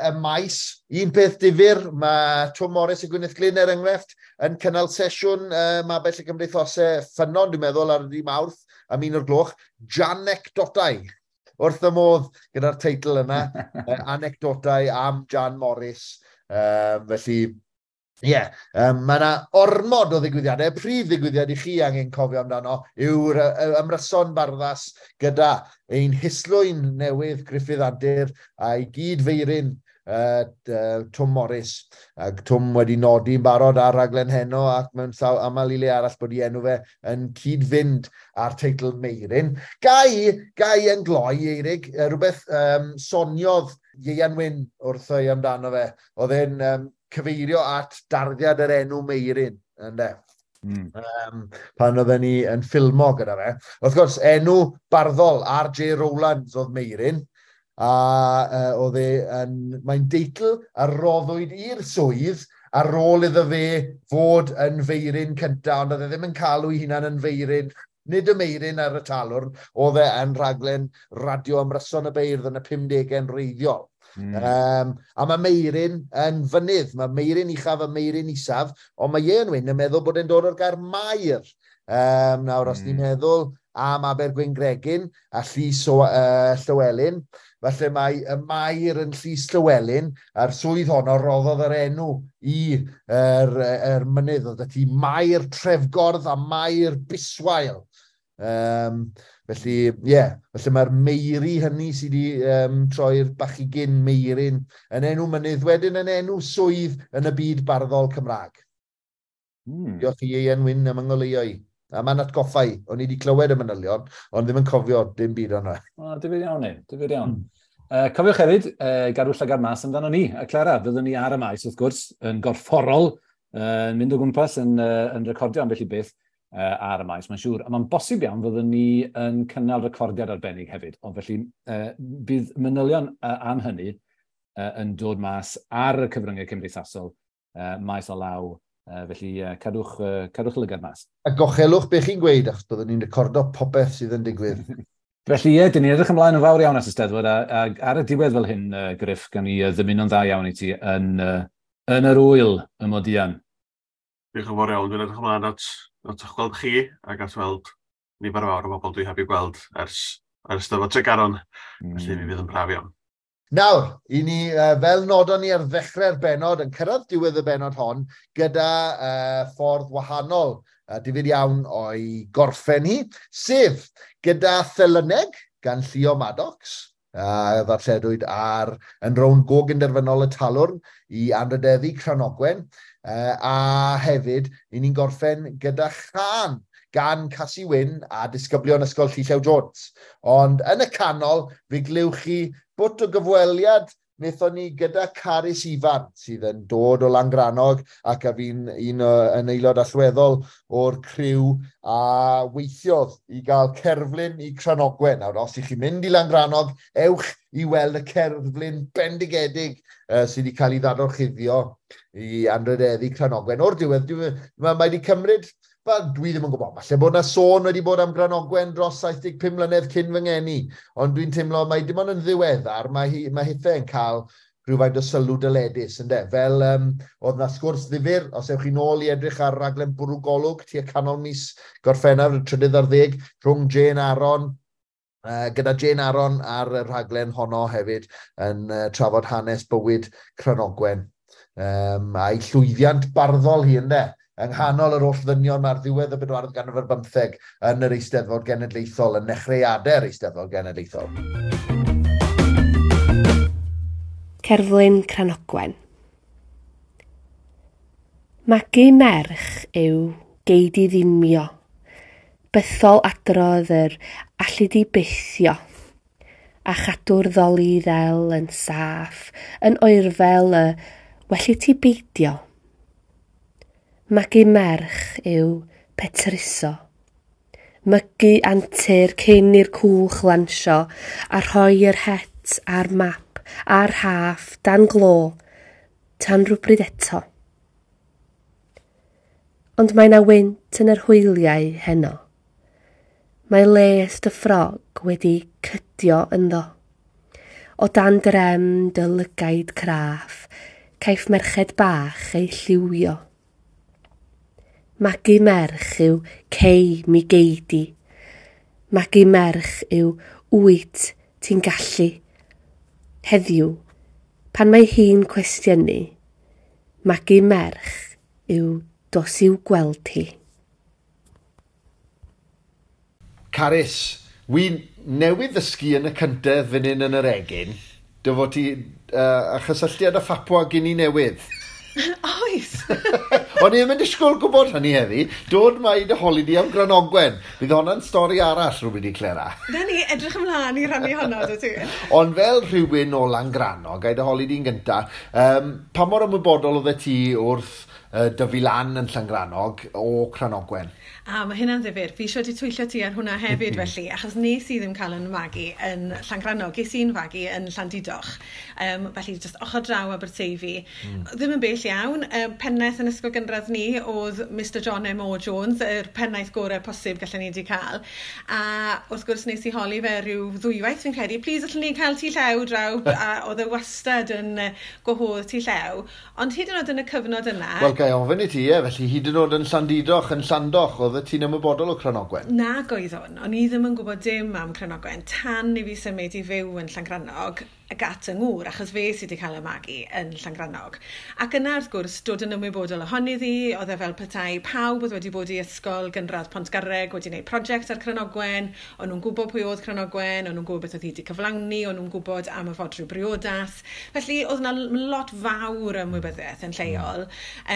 y maes. Un peth difyr, mae Twm Morris a Gwyneth Glyn er enghraifft yn cynnal sesiwn Mabell y Cymdeithasau Ffynnon, dwi'n meddwl, ar y Mawrth am 1:00, Janecdotau. Wrth y modd gyda'r teitl yna, anecdotau am Jan Morris. Felly, ie, yeah, mae yna ormod o ddigwyddiadau. Prif ddigwyddiad i chi angen cofio amdano yw'r ymryson barddas gyda ein hislwyn newydd Gruffydd Antur a'i gyd-feiryn Twm Morris. Ac Twm wedi nodi'n barod ar raglen heno ac mewn sawl aml i le arall bod ei enw fe yn cyd-fynd â'r teitl Meiryn. Gai yn gloi, Eirig, rhywbeth soniodd Ieuan Wyn wrtho i amdano fe. Oedd e'n cyfeirio at darddiad yr enw Meiryn, ynde? Pan oedden ni yn ffilmo gyda fe. Wrth gwrs, enw barddol R.J. Rowlands oedd Meiryn, a oedd e yn, mae'n deitl a roddwyd i'r swydd ar ôl iddo fe fod yn feiryn cyntaf, ond oedd e ddim yn cael ei hunan yn feiryn, nid y Meiryn ar y talwrn, oedd e yn rhaglen radio ymryson y beirdd yn y 50au'n reiddiol. A mae Meiryn yn fynydd, mae Meiryn uchaf a Meiryn isaf, ond mae Ieuan Wyn yn meddwl bod e'n dod o'r gair mair. Nawr, os ni'n meddwl am Abergwyngregyn a Llys Llywelyn, falle mae y mair yn Llys Llywelyn, a'r swydd honno roddodd yr enw i yr mynydd, oedd ti Mair Trefgordd a Mair Biswael. Felly, ie, yeah, felly mae'r meiri hynny sydd wedi troi'r bachigyn Meiryn yn enw mynydd, wedyn yn enw swydd yn y byd barddol Cymraeg. Diolch i Ieuan Wyn am yngoleuo i. A mae'n atgoffa i, o'n i wedi clywed y manylion, ond ddim yn cofio dim byd o'na. O, difyr iawn ni, difyr iawn. Cofiwch hefyd, gadw llygad mas amdano ni, a Clara, fyddwn ni ar y maes, wrth gwrs, yn gorfforol, yn mynd o gwmpas, yn recordio ambell i beth ar y maes, mae'n siŵr. A mae'n bosib iawn fyddwn ni yn cynnal recordiad arbennig hefyd. Ond felly, bydd manylion am hynny yn dod mas ar y cyfryngau cymdeithasol, maes o law. Felly, cadwch lygad mas. A gochelwch be chi'n gweud, achos byddwn ni'n recordo popeth sydd yn digwydd. Felly, ie, dyn ni'n edrych ymlaen yn fawr iawn at y Steddfod, a ar y diwedd fel hyn, Griff, gan i ddymuno'n dda iawn i ti yn yr ŵyl y Modian. Diolch yn fawr iawn, dwi'n edrych ymlaen at eich gweld chi ac at weld nifer fawr o bobl dwi heb i gweld ers Steddfod Tregaron. Felly mi fydd yn braf iawn. Nawr, i ni, fel nodon ni ar ddechrau'r bennod, yn cyrraedd diwedd y bennod hon, gyda ffordd wahanol, difyr iawn o'i gorffen hi, sef gyda Thelyneg gan Llio Maddox, a ddarlledwyd ar yn rownd gogynderfynol y Talwrn i anrhydeddu Cranogwen, a hefyd, i ni'n gorffen gyda chân gan Casi Wyn a disgyblion Ysgol Llew Jones. Ond yn y canol, fe glywch chi bwt o gyfweliad wnaethon ni gyda Carys Ifan, sydd yn dod o Langrannog ac a fi'n un yn aelod allweddol o'r criw a weithiodd i gael cerflun i Cranogwen. Nawr, os ych chi'n mynd i Langrannog, ewch i weld y cerflun bendigedig sydd wedi cael ei ddadorchuddio i anrhydeddu Cranogwen. O'r diwedd, mae wedi cymryd, dwi ddim yn gwybod, falle bod yna sôn wedi bod am Granogwen dros 75 mlynedd cyn fy ngeni, ond dwi'n teimlo mae dim ond yn ddiweddar, mae hithau yn cael rhywfaint o sylw dyledus, ynde? Fel oedd na sgwrs ddifyr, os ewch chi nôl i edrych ar raglen Bwrw Golwg tua canol mis Gorffennaf, y 13, rhwng Jane Aaron, gyda Jane Aaron ar y rhaglen honno hefyd yn trafod hanes bywyd Cranogwen. A'i llwyddiant barddol hi, ynde? yng nghanol yr holl ddynion mae'r ddiwedd y bedwaredd ganrif ar bymtheg yn yr Eisteddfod Genedlaethol, yn nechreuadau'r Eisteddfod Genedlaethol. Cerflun Cranogwen. Magu merch yw gei di ddimio, bythol adrodd yr allu di bythio, a chadw'r ddoli ddel yn saff, yn oerfel y well i ti beidio. Magu merch yw petruso, mygu antur cyn i'r cwch lansio a rhoi yr het a'r map a'r rhaff dan glo tan rhywbryd eto. Ond mae 'na wynt yn yr hwyliau heno. Mae les dy ffrog wedi cydio ynddo. O dan drem dy lygaid craff, caiff merched bach eu lliwio. Magu merch yw cei mi gei di. Magu merch yw wyt ti'n gallu. Heddiw, pan mae hi'n cwestiynu, magu merch yw dos i'w gweld hi. Carys, wi newydd ddysgu yn y cyntedd fan hyn yn yr egin, dy fod ti a chysylltiad â Phapua Guinea Newydd. Oes! O'n i ddim yn disgwyl gwybod hynny heddi. Dod mae dy holi di am Granogwen. Bydd honna'n stori arall rhywbryd i Clera. Na ni, edrych ymlaen i rannu honno, dy ti. Ond fel rhywun o Langrannog, gai dy holi di'n gynta, pa mor ymwybodol oeddet ti wrth dyfu lan yn Llangrannog o Cranogwen? A mae hynna'n ddifyr. Fi eisiau di twyllo ti ar hwnna hefyd felly, achos nes i ddim cael yn magu yn Llangrannog. Ges i'n fagu yn Llandudoch. Felly, just ochr draw Aberteifi. Ddim yn bell iawn. Pennaeth yn ysgol gynradd ni oedd Mr John M. O. Jones, yr pennaeth gorau posib gallen ni wedi cael. A wrth gwrs nes i holi fe rhyw ddwywaith fi'n credu, please allwn ni cael tŷ llew draw, a oedd e wastad yn gwahodd tŷ llew. Ond hyd yn oed yn y cyfnod yna... Wel, gai ofyn i ti, ie, felly hyd yn oed yn Llandudoch, yn Llandoch, oedd ti'n ymwybodol o Cranogwen? Nag oeddwn. O'n i ddim yn gwybod dim am Cranogwen tan i fi symud i fyw yn Llangrannog ac at yng ngŵr, achos fe sydd wedi cael y magu yn Llangrannog. Ac yna, wrth gwrs, dod yn ymwybodol ohoni ddi, oedd e fel petai pawb oedd wedi bod i ysgol gynradd Pontgarreg wedi gwneud prosiect ar Cranogwen, o'n nhw'n gwybod pwy oedd Cranogwen, o'n nhw'n gwybod beth oedd hi wedi cyflawni, o'n nhw'n gwybod am y fodrwy briodas. Felly, oedd yna lot fawr ymwybyddiaeth yn lleol.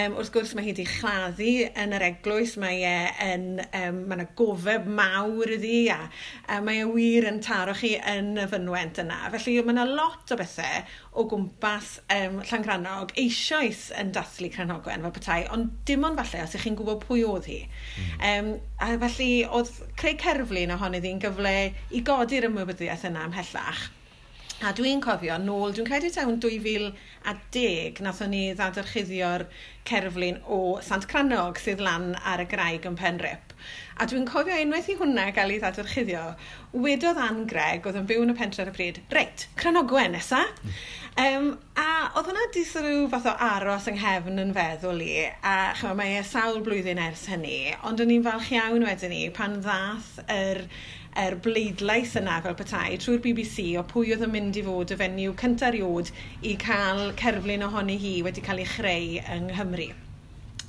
Wrth gwrs, mae hi wedi chladdu yn yr eglwys, mae e yn, mae yna gofeb mawr iddi, a mae e wir yn taro chi yn y fynwent yna. Felly, mae yna lot o bethau o gwmpas Llangrannog eisoes yn dathlu Cranogwen fel petai, ond dim ond falle os ych chi'n gwybod pwy oedd hi. A felly oedd creu cerflun ohoni ddi'n gyfle i godi'r ymwybyddiaeth yna ymhellach. A dwi'n cofio nôl, dwi'n credu tawn 2010, nathon ni ddadorchuddio'r cerflun o Sant Crannog sydd lan ar y graig yn Penrhip. A dwi'n cofio unwaith i hwnna gael ei ddadorchuddio, wedodd Ann Gregg, oedd yn byw yn y pentre ar y pryd, reit, Cranogwen nesa. A oedd hwnna di sort of fath o aros yng nghefn yn feddwl i, a chymod, mae e sawl blwyddyn ers hynny, ond o'n i'n falch iawn wedyn ni pan ddath yr bleidlais yna fel petai trwy'r BBC o pwy oedd yn mynd i fod y fenyw cyntaf erioed i cael cerflun ohoni hi wedi cael ei chreu yng Nghymru.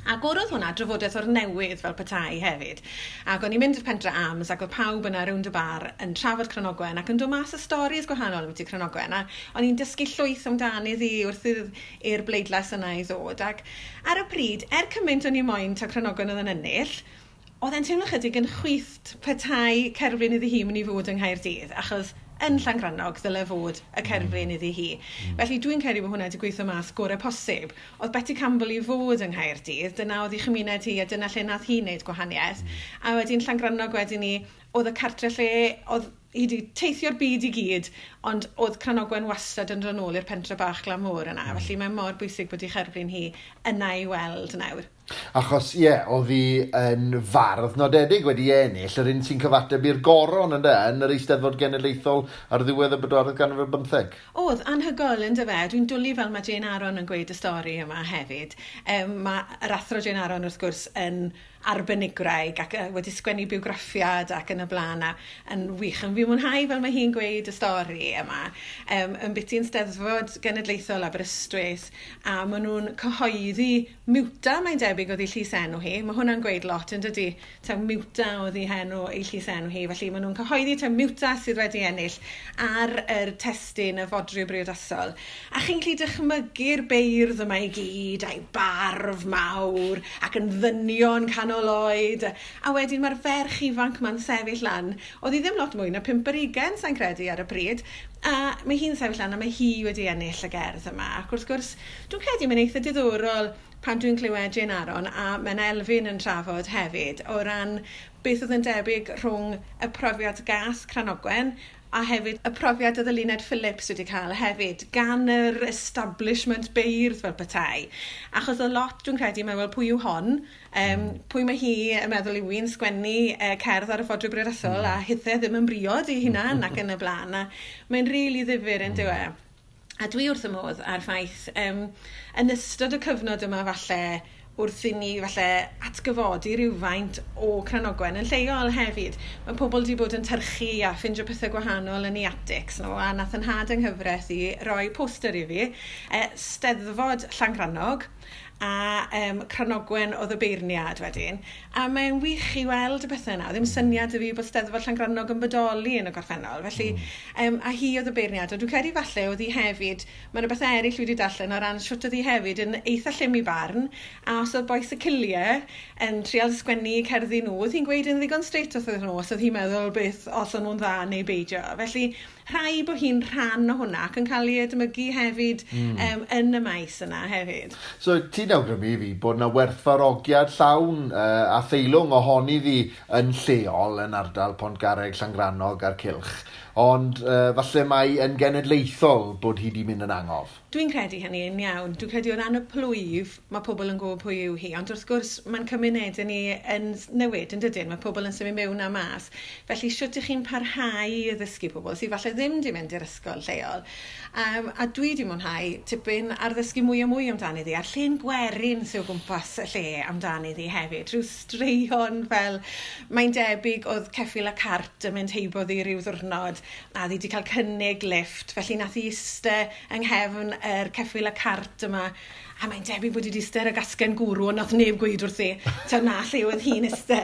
Ac oedd hwnna drafodaeth o'r newydd fel petai hefyd. Ac o'n i'n mynd i'r Pentre Arms ac oedd pawb yna rownd y bar yn trafod Cranogwen ac yn dod mas y storis gwahanol ambiti Cranogwen. A o'n i'n dysgu llwyth amdani ddi wrth i'r bleidlais yna i ddod. Ac ar y pryd, cymaint o'n i moyn ta Cranogwen oedd yn ennill, oedd e'n teimlo chydig yn chwith petai cerflun iddi hi mynd i fod yng Nghaerdydd, achos yn Llangrannog ddyle fod y cerflun iddi hi. Felly dwi'n credu bod hwnna wedi gweithio mas gorau posib. Oedd Betty Campbell i fod yng Nghaerdydd, dyna oedd ei chymuned hi a dyna lle nath hi wneud gwahaniaeth. A wedyn Llangrannog wedyn ni, oedd y cartre lle, oedd hi wedi teithio'r byd i gyd, ond oedd Cranogwen wastad yn dod nôl i'r pentre bach glan môr yna. Felly mae mor bwysig bod ei cherflun hi yna i weld nawr. Achos, ie, oedd hi yn fardd nodedig wedi ennill, yr un sy'n cyfateb i'r goron ynde, yn yr Eisteddfod Genedlaethol ar ddiwedd y bedwaredd ganrif ar bymtheg. Oedd, anhygoel yndyfe. Dwi'n dwlu fel mae Jane Aaron yn gweud y stori yma hefyd. Mae yr athro Jane Aaron wrth gwrs yn arbenigwraig ac wedi sgwennu biwgraffiad ac yn y blaen a yn wych. Yn fi mwynhau fel mae hi'n gweud y stori yma, yn biti'n Steddfod Genedlaethol Aberystwyth, a maen nhw'n cyhoeddi Miwta, mae'n debyg oedd ei llys enw hi. Mae hwnna'n gweud lot yn dydy, taw Miwta oedd ei henw, ei llys enw hi. Felly maen nhw'n cyhoeddi taw Miwta sydd wedi ennill ar yr testun y fodryw briodasol. A chi'n gallu dychmygu'r beirdd yma i gyd, a'i barf mawr, ac yn ddynion canol oed. A wedyn mae'r ferch ifanc ma'n sefyll lan. Oedd hi ddim lot mwy na 25, sa'n credu, ar y pryd. A mae hi'n sefyll lan a mae hi wedi ennill y gerdd yma. Ac wrth gwrs, dwi'n credu mae'n eitha diddorol pan dwi'n clywed Jane Aaron a Menna Elfyn yn trafod hefyd o ran beth oedd yn debyg rhwng y profiad gas Cranogwen a hefyd y profiad oedd Eluned Phillips wedi cael hefyd gan yr establishment beirdd fel petai. Achos y lot dwi'n credu mae wel pwy yw hon, pwy mae hi yn meddwl yw hi'n sgwennu cerdd ar y fodryw briodasol a hithe ddim yn briod i hunan ac yn y blaen. A mae'n rili ddifyr yn dyw e. A dwi wrth y modd ar ffaith, yn ystod y cyfnod yma falle, wrth i ni falle atgyfodi rhywfaint o Cranogwen yn lleol hefyd. Mae pobl wedi bod yn tyrchu a ffindio pethau gwahanol yn ei attics nhw, a nath yn nhad yng nghyfraith i roi poster i fi, Steddfod Llangrannog, a Cranogwen oedd y beirniad wedyn. A mae'n wych i weld y pethau yna. Ddim syniad i fi bod Steddfod Llangrannog yn bodoli yn y gorffennol. Felly, a hi oedd y beirniad. Ond dwi'n credu falle oedd hi hefyd, mae yna bethau eraill wedi darllen o ran shwt oedd hi hefyd yn eitha llym i barn, a os oedd bois y Ciliau yn trial sgwennu cerddi nhw, oedd hi'n gweud yn ddigon straight wrth nhw, os oedd hi'n meddwl beth os o'n nhw'n dda neu beidio. Felly, rhaid bod hi'n rhan o hwnna ac yn cael ei edmygu hefyd yn y maes yna hefyd. So, ti'n awgrymu i fi bod yna werthfawrogiad llawn a theilwng ohoni ddi yn lleol yn ardal Pontgarreg, Llangrannog a'r Cylch, ond falle mai yn genedlaethol bod hi wedi mynd yn angof. Dwi'n credu hynny yn iawn. Dwi'n credu o ran y plwyf, mae pobl yn gwybod pwy yw hi, ond wrth gwrs mae'n cymunedau ni yn newid yn dydyn, mae pobl yn symud mewn a mas. Felly shwt ych chi'n parhau i ddysgu pobl sydd falle ddim wedi mynd i'r ysgol lleol. A dwi wedi mwynhau tipyn ar ddysgu mwy a mwy amdani ddi, a'r llên gwerin sydd o gwmpas y lle amdani ddi hefyd. Rhyw straeon fel, mae'n debyg oedd ceffyl a cart yn mynd heibo ddi ryw ddiwrnod, a ddi wedi cael cynnig lift, felly nath hi iste yng nghefn yr ceffyl a cart yma, a mae'n debyg bod hi wedi iste ar y gasgen gwrw, ond nath neb gweud wrthi, ta na lle oedd hi'n iste.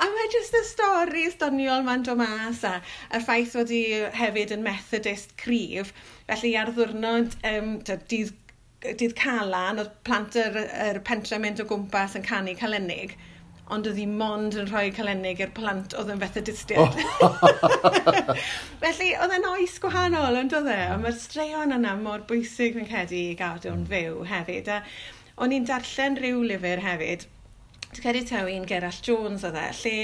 A mae jyst y stori doniol ma'n dod mas, a y ffaith fod hi hefyd yn Methodist cryf, felly ar ddiwrnod dydd Calan, oedd plant yr pentre mynd o gwmpas yn canu calenig, ond oedd hi mond yn rhoi calenig i'r plant oedd yn Methodistiaid. Felly, oedd e'n oes gwahanol, ond oedd e? A mae'r straeon yna mor bwysig fi'n credu i gadw'n fyw hefyd. A o'n i'n darllen rhyw lyfr hefyd, dwi'n credu taw un Gerallt Jones oedd e, lle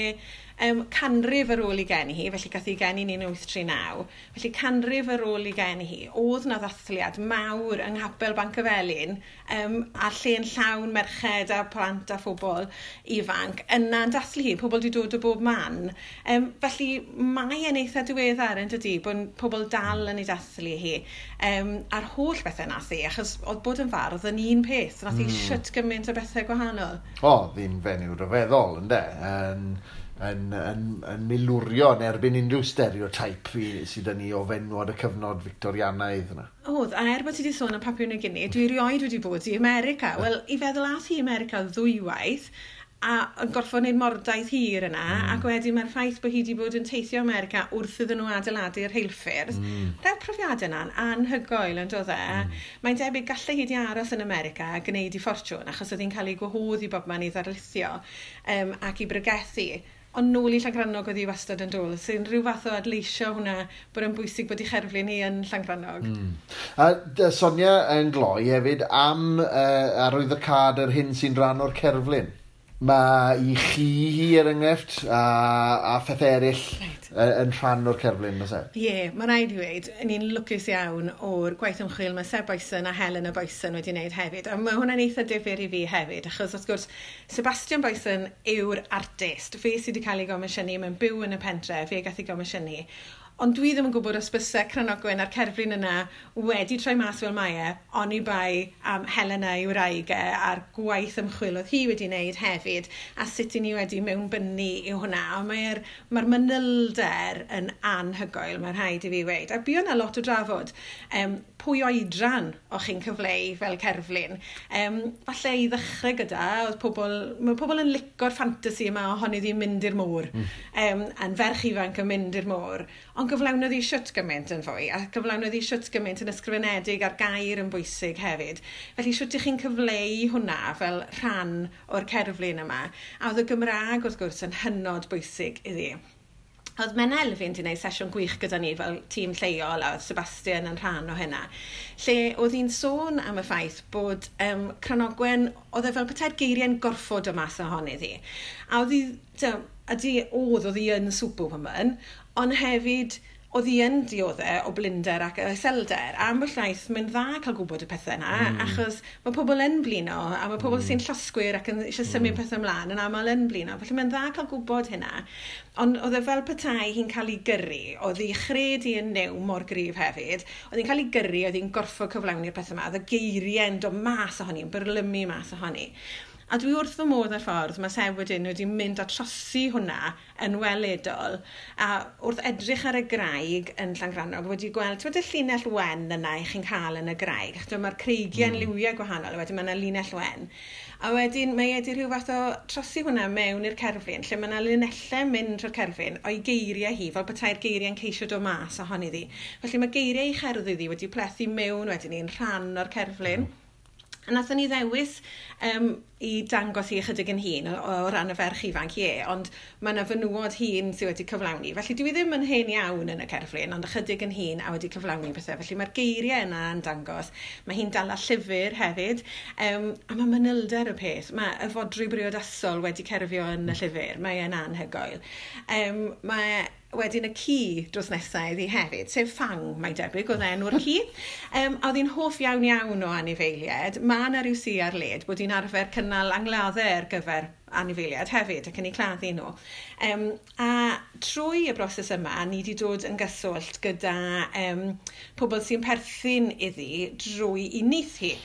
canrif ar ôl i geni hi, felly gath hi geni yn 1839, felly canrif ar ôl i geni hi, oedd na ddathliad mawr yng Nghapel Bancyfelin, a lle'n llawn merched a plant a phobl ifanc, yna'n dathlu hi, pobl wedi dod o bob man. Felly mae e'n eitha diweddar yn dydi, bod pobl dal yn ei dathlu hi, a'r holl bethau nath hi, achos oedd bod yn fardd yn un peth, nath hi shwt gymaint o bethau gwahanol. O, ddi'n fenyw ryfeddol, ynde? Yn milwrio yn erbyn unrhyw stereotype sydd yn ni o fenwod y cyfnod Victorianaidd yna. Oedd, a er bod ti wedi sôn am Papua New Guinea, dwi erioed wedi bod i America. Wel, i feddwl ath hi America ddwywaith, a yn gorfod wneud mordaith hir yna, ac wedyn mae'r ffaith bod hi wedi bod yn teithio America wrth iddyn nhw adeiladu'r rheilffyrdd. Rhaid profiadau yna'n anhygoel yn dod e. Mae'n debyg gallai hi wedi aros yn America a gwneud i ffortiwn, achos oedd hi'n cael ei gwahodd i bobman i ddarlithio ac i bregethu. Ond nôl i Llangrannog oedd hi wastad yn dod, sy'n rhyw fath o adleisio hwnna bod yn bwysig bod ei cherflun hi yn Llangrannog. A Sonia yn gloi hefyd am arwyddocâd yr hyn sy'n rhan o'r cerflun. Mae i chi hi er enghraifft a phethau eraill yn rhan o'r cerflun, oes e? Ie, yeah, mae rhaid i weud, ni'n lwcus iawn o'r gwaith ymchwil mae Seb Boyson a Helena Boyson wedi wneud hefyd. A mae hwnna'n eitha difyr i fi hefyd, achos wrth gwrs, Sebastian Boyson yw'r artist. Fe sydd wedi cael ei gomisiynu, mae'n byw yn y pentre, fe gath ei gomisiynu. Ond dwi ddim yn gwybod os byse Cranogwen a'r cerflun yna wedi troi mas fel mae e, oni bai am Helena ei wraig e a'r gwaith ymchwil oedd hi wedi wneud hefyd, a sut i ni wedi mewnbynnu i hwnna. A mae'r manylder yn anhygoel, mae'n rhaid i fi weud. A bu yna lot o drafod pwy oedran o'ch chi'n cyfleu fel cerflun. Falle i ddechrau gyda, oedd pobl, mae pobl yn lico'r ffantasi yma ohoni ddi'n mynd i'r môr. A'n ferch ifanc yn mynd i'r môr. Ond gyflawnodd hi shwt gymaint yn fwy, a gyflawnodd hi shwt gymaint yn ysgrifenedig a'r gair yn bwysig hefyd. Felly shwt ych chi'n cyfleu hwnna fel rhan o'r cerflun yma. A oedd y Gymraeg wrth gwrs yn hynod bwysig iddi. Oedd Menna Elfyn wedi gwneud sesiwn gwych gyda ni fel tîm lleol, a oedd Sebastian yn rhan o hynna, lle oedd hi'n sôn am y ffaith bod Cranogwen, oedd e fel petai'r geiriau'n gorfod o mas ohoni ddi. A oedd hi, oedd hi yn superwoman, ond hefyd oedd hi yn dioddef o blinder ac iselder. A ambell waith, mae'n dda cael gwybod y pethau yna, achos mae pobl yn blino, a mae pobl sy'n llosgwyr ac yn eisiau symud pethau ymlaen yn aml yn blino. Felly mae'n dda cael gwybod hynna. Ond oedd e fel petai hi'n cael ei gyrru, oedd hi chred i yn new mor gryf hefyd, oedd hi'n cael ei gyrru, oedd hi'n gorfod cyflawni'r pethau yma, oedd y geiriau'n dod mas ohoni, yn byrlymu mas ohoni. A dwi wrth fy modd ar ffordd, mae Seb wedyn wedi mynd a trosi hwnna yn weledol. A wrth edrych ar y graig yn Llangrannog, wedi gweld, ti'n y llinell wen yna i chi'n cael yn y graig. Achos mae'r creigiau'n liwiau gwahanol, a wedyn mae yna linell wen. A wedyn mae wedi rhyw fath o trosi hwnna mewn i'r cerflun, lle mae yna linellau mynd trwy'r cerflun o'i geiriau hi, fel petai'r geiriau'n ceisio dod mas ohoni ddi. Felly mae geiriau ei cherddi ddi wedi plethu mewn wedyn ni'n rhan o'r cerflun. A nathon ni ddewis i dangos hi ychydig yn hŷn o ran y ferch ifanc, ie, ond mae yna fenywod hŷn sydd wedi cyflawni. Felly dwi ddim yn hen iawn yn y cerflun, ond ychydig yn hŷn a wedi cyflawni pethau. Felly mae'r geiriau yna yn dangos. Mae hi'n dala llyfr hefyd, a mae manylder y peth. Mae y fodrwy briodasol wedi cerfio yn y llyfr. Mae e'n anhygoel. Mae wedyn y ci dros nesaf iddi hefyd, sef Fang, mae'n debyg, oedd enw'r ci. A oedd hi'n hoff iawn iawn o anifeiliaid. Mae yna rhyw si ar led bod hi'n arfer cynnal angladdau ar gyfer anifeiliaid hefyd ac yn eu claddu nhw. A trwy y broses yma, ni wedi dod yn gyswllt gyda pobl sy'n perthyn iddi drwy i nith hi.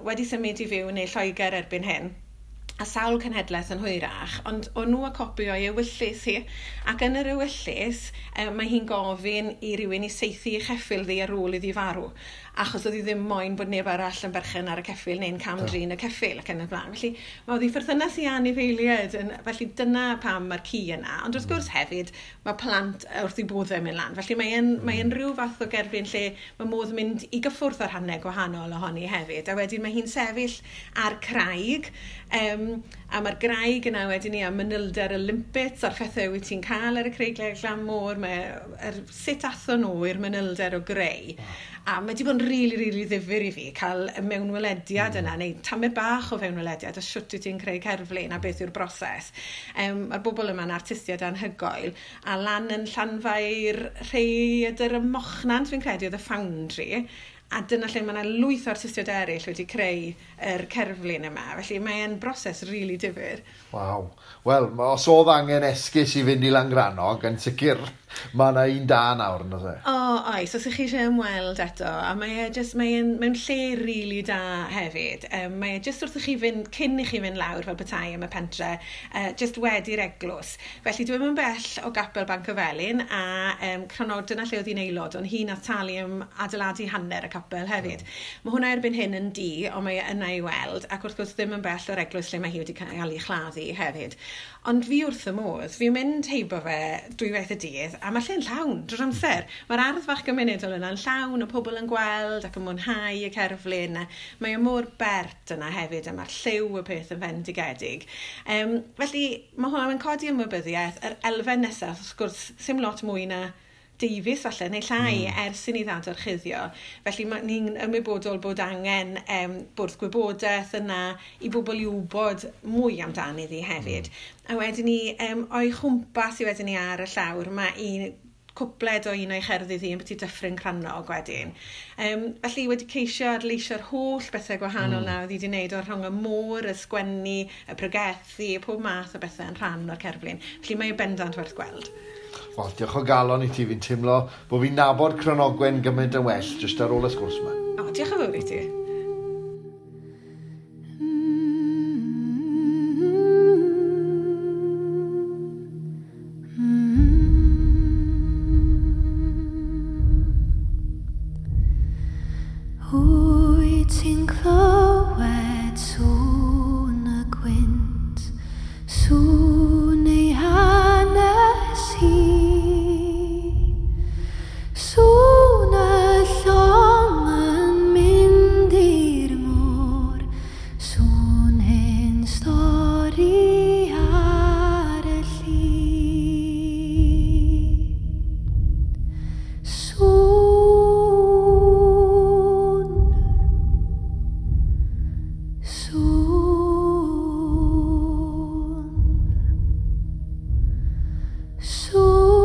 Wedi symud i fyw neu Lloegr erbyn hyn, a sawl cenhedlaeth yn hwyrach, ond o'n nhw a copi o'i ewyllys hi. Ac yn yr ewyllys, mae hi'n gofyn i rywun i saethu ei cheffyl ddi ar ôl iddi farw, achos oedd hi ddim moyn bod neb arall yn berchen ar y ceffyl neu'n cam-drin y ceffyl ac yn y blaen. Felly mae oedd hi pherthynas i anifeiliaid, felly dyna pam mae'r ci yna. Ond wrth gwrs hefyd, mae plant wrth i boddau mynd lan. Felly mae'n rhyw fath o gerflun lle mae modd mynd i gyffwrdd ar rhannau gwahanol ohoni hefyd. A wedyn mae hi'n sefyll ar craig, a mae'r graig yna wedyn ni a manylder y limpets a'r phethau wyt ti'n cael ar y creigiau glan môr, mae sut athon nhw i'r manylder o greu. A mae wedi bod yn rili, rili ddifyr i fi cael y mewnwelediad yna, neu tamed bach o fewnwelediad, a shwt wyt ti'n creu cerflun a beth yw'r broses. Mae'r bobl yma'n artistiaid anhygoel, a lan yn Llanfair Rhaeadr y Mochnant, fi'n credu, oedd y Foundry, a dyna lle mae yna lwyth o artistiaid eraill wedi creu yr cerflun yma. Felly mae'n broses rili difyr. Waw. Wel, os oedd angen esgus i fynd i Langrannog, yn sicr mae yna un da nawr, yn oes e? O, oes, os ych chi eisiau ymweld eto, a mae e just, mae'n mewn lle rili da hefyd. Mae e just wrth i chi fynd, cyn i chi fynd lawr fel petai am y pentre, just wedi'r eglwys. Felly dwi'm yn bell o Gapel Banc y Felin, a Crannog, dyna lle oedd hi'n aelod, ond hi nath talu am adeiladu hanner y capel hefyd. Mae hwnna erbyn hyn yn di, ond mae e yna i weld, ac wrth gwrs ddim yn bell o'r eglwys lle mae hi wedi cael ei chladdu hefyd. Ond fi wrth y modd, fi'n mynd heibo fe dwywaith y dydd, a mae lle'n llawn drwy'r amser. Mae'r ardd fach gymunedol yna'n llawn o pobl yn gweld ac yn mwynhau y cerflun. Mae o mor bert yna hefyd, a mae'r lliw y peth yn fendigedig. Felly mae hwnna'n codi ymwybyddiaeth. Yr elfen nesaf, wrth gwrs, sim lot mwy na deufis falle, neu llai ers i ni ddadorchuddio. Felly ni'n ymwybodol bod angen bwrdd gwybodaeth yna i bobl i wybod mwy amdani ddi hefyd. A wedyn ni, o'i chwmpas i wedyn ni ar y llawr, mae un cwpled o un o'i cherddi ddi yn byti Dyffryn Crannog wedyn. Felly wedi ceisio adleisio'r holl bethau gwahanol na oedd hi wedi wneud o'r rhwng y môr, y sgwennu, y pregethu, pob math o bethau yn rhan o'r cerflun. Felly mae bendant werth gweld. Wel, diolch o galon i ti, fi'n teimlo bod fi'n nabod Cranogwen gymaint yn well jyst ar ôl y sgwrs yma. O, diolch yn fawr i ti. Wyt ti'n clywed sŵn y gwynt, sŵn ei hanes hi, sŵn y llong yn mynd i'r môr, sŵn hen stori ar y lli. Sŵn, sŵn, sŵn,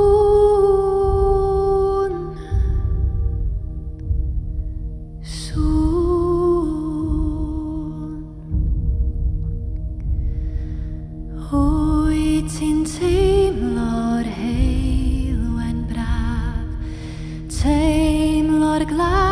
sŵn. Wyt ti'n teimlo'r heulwen braf, teimlo'r glaw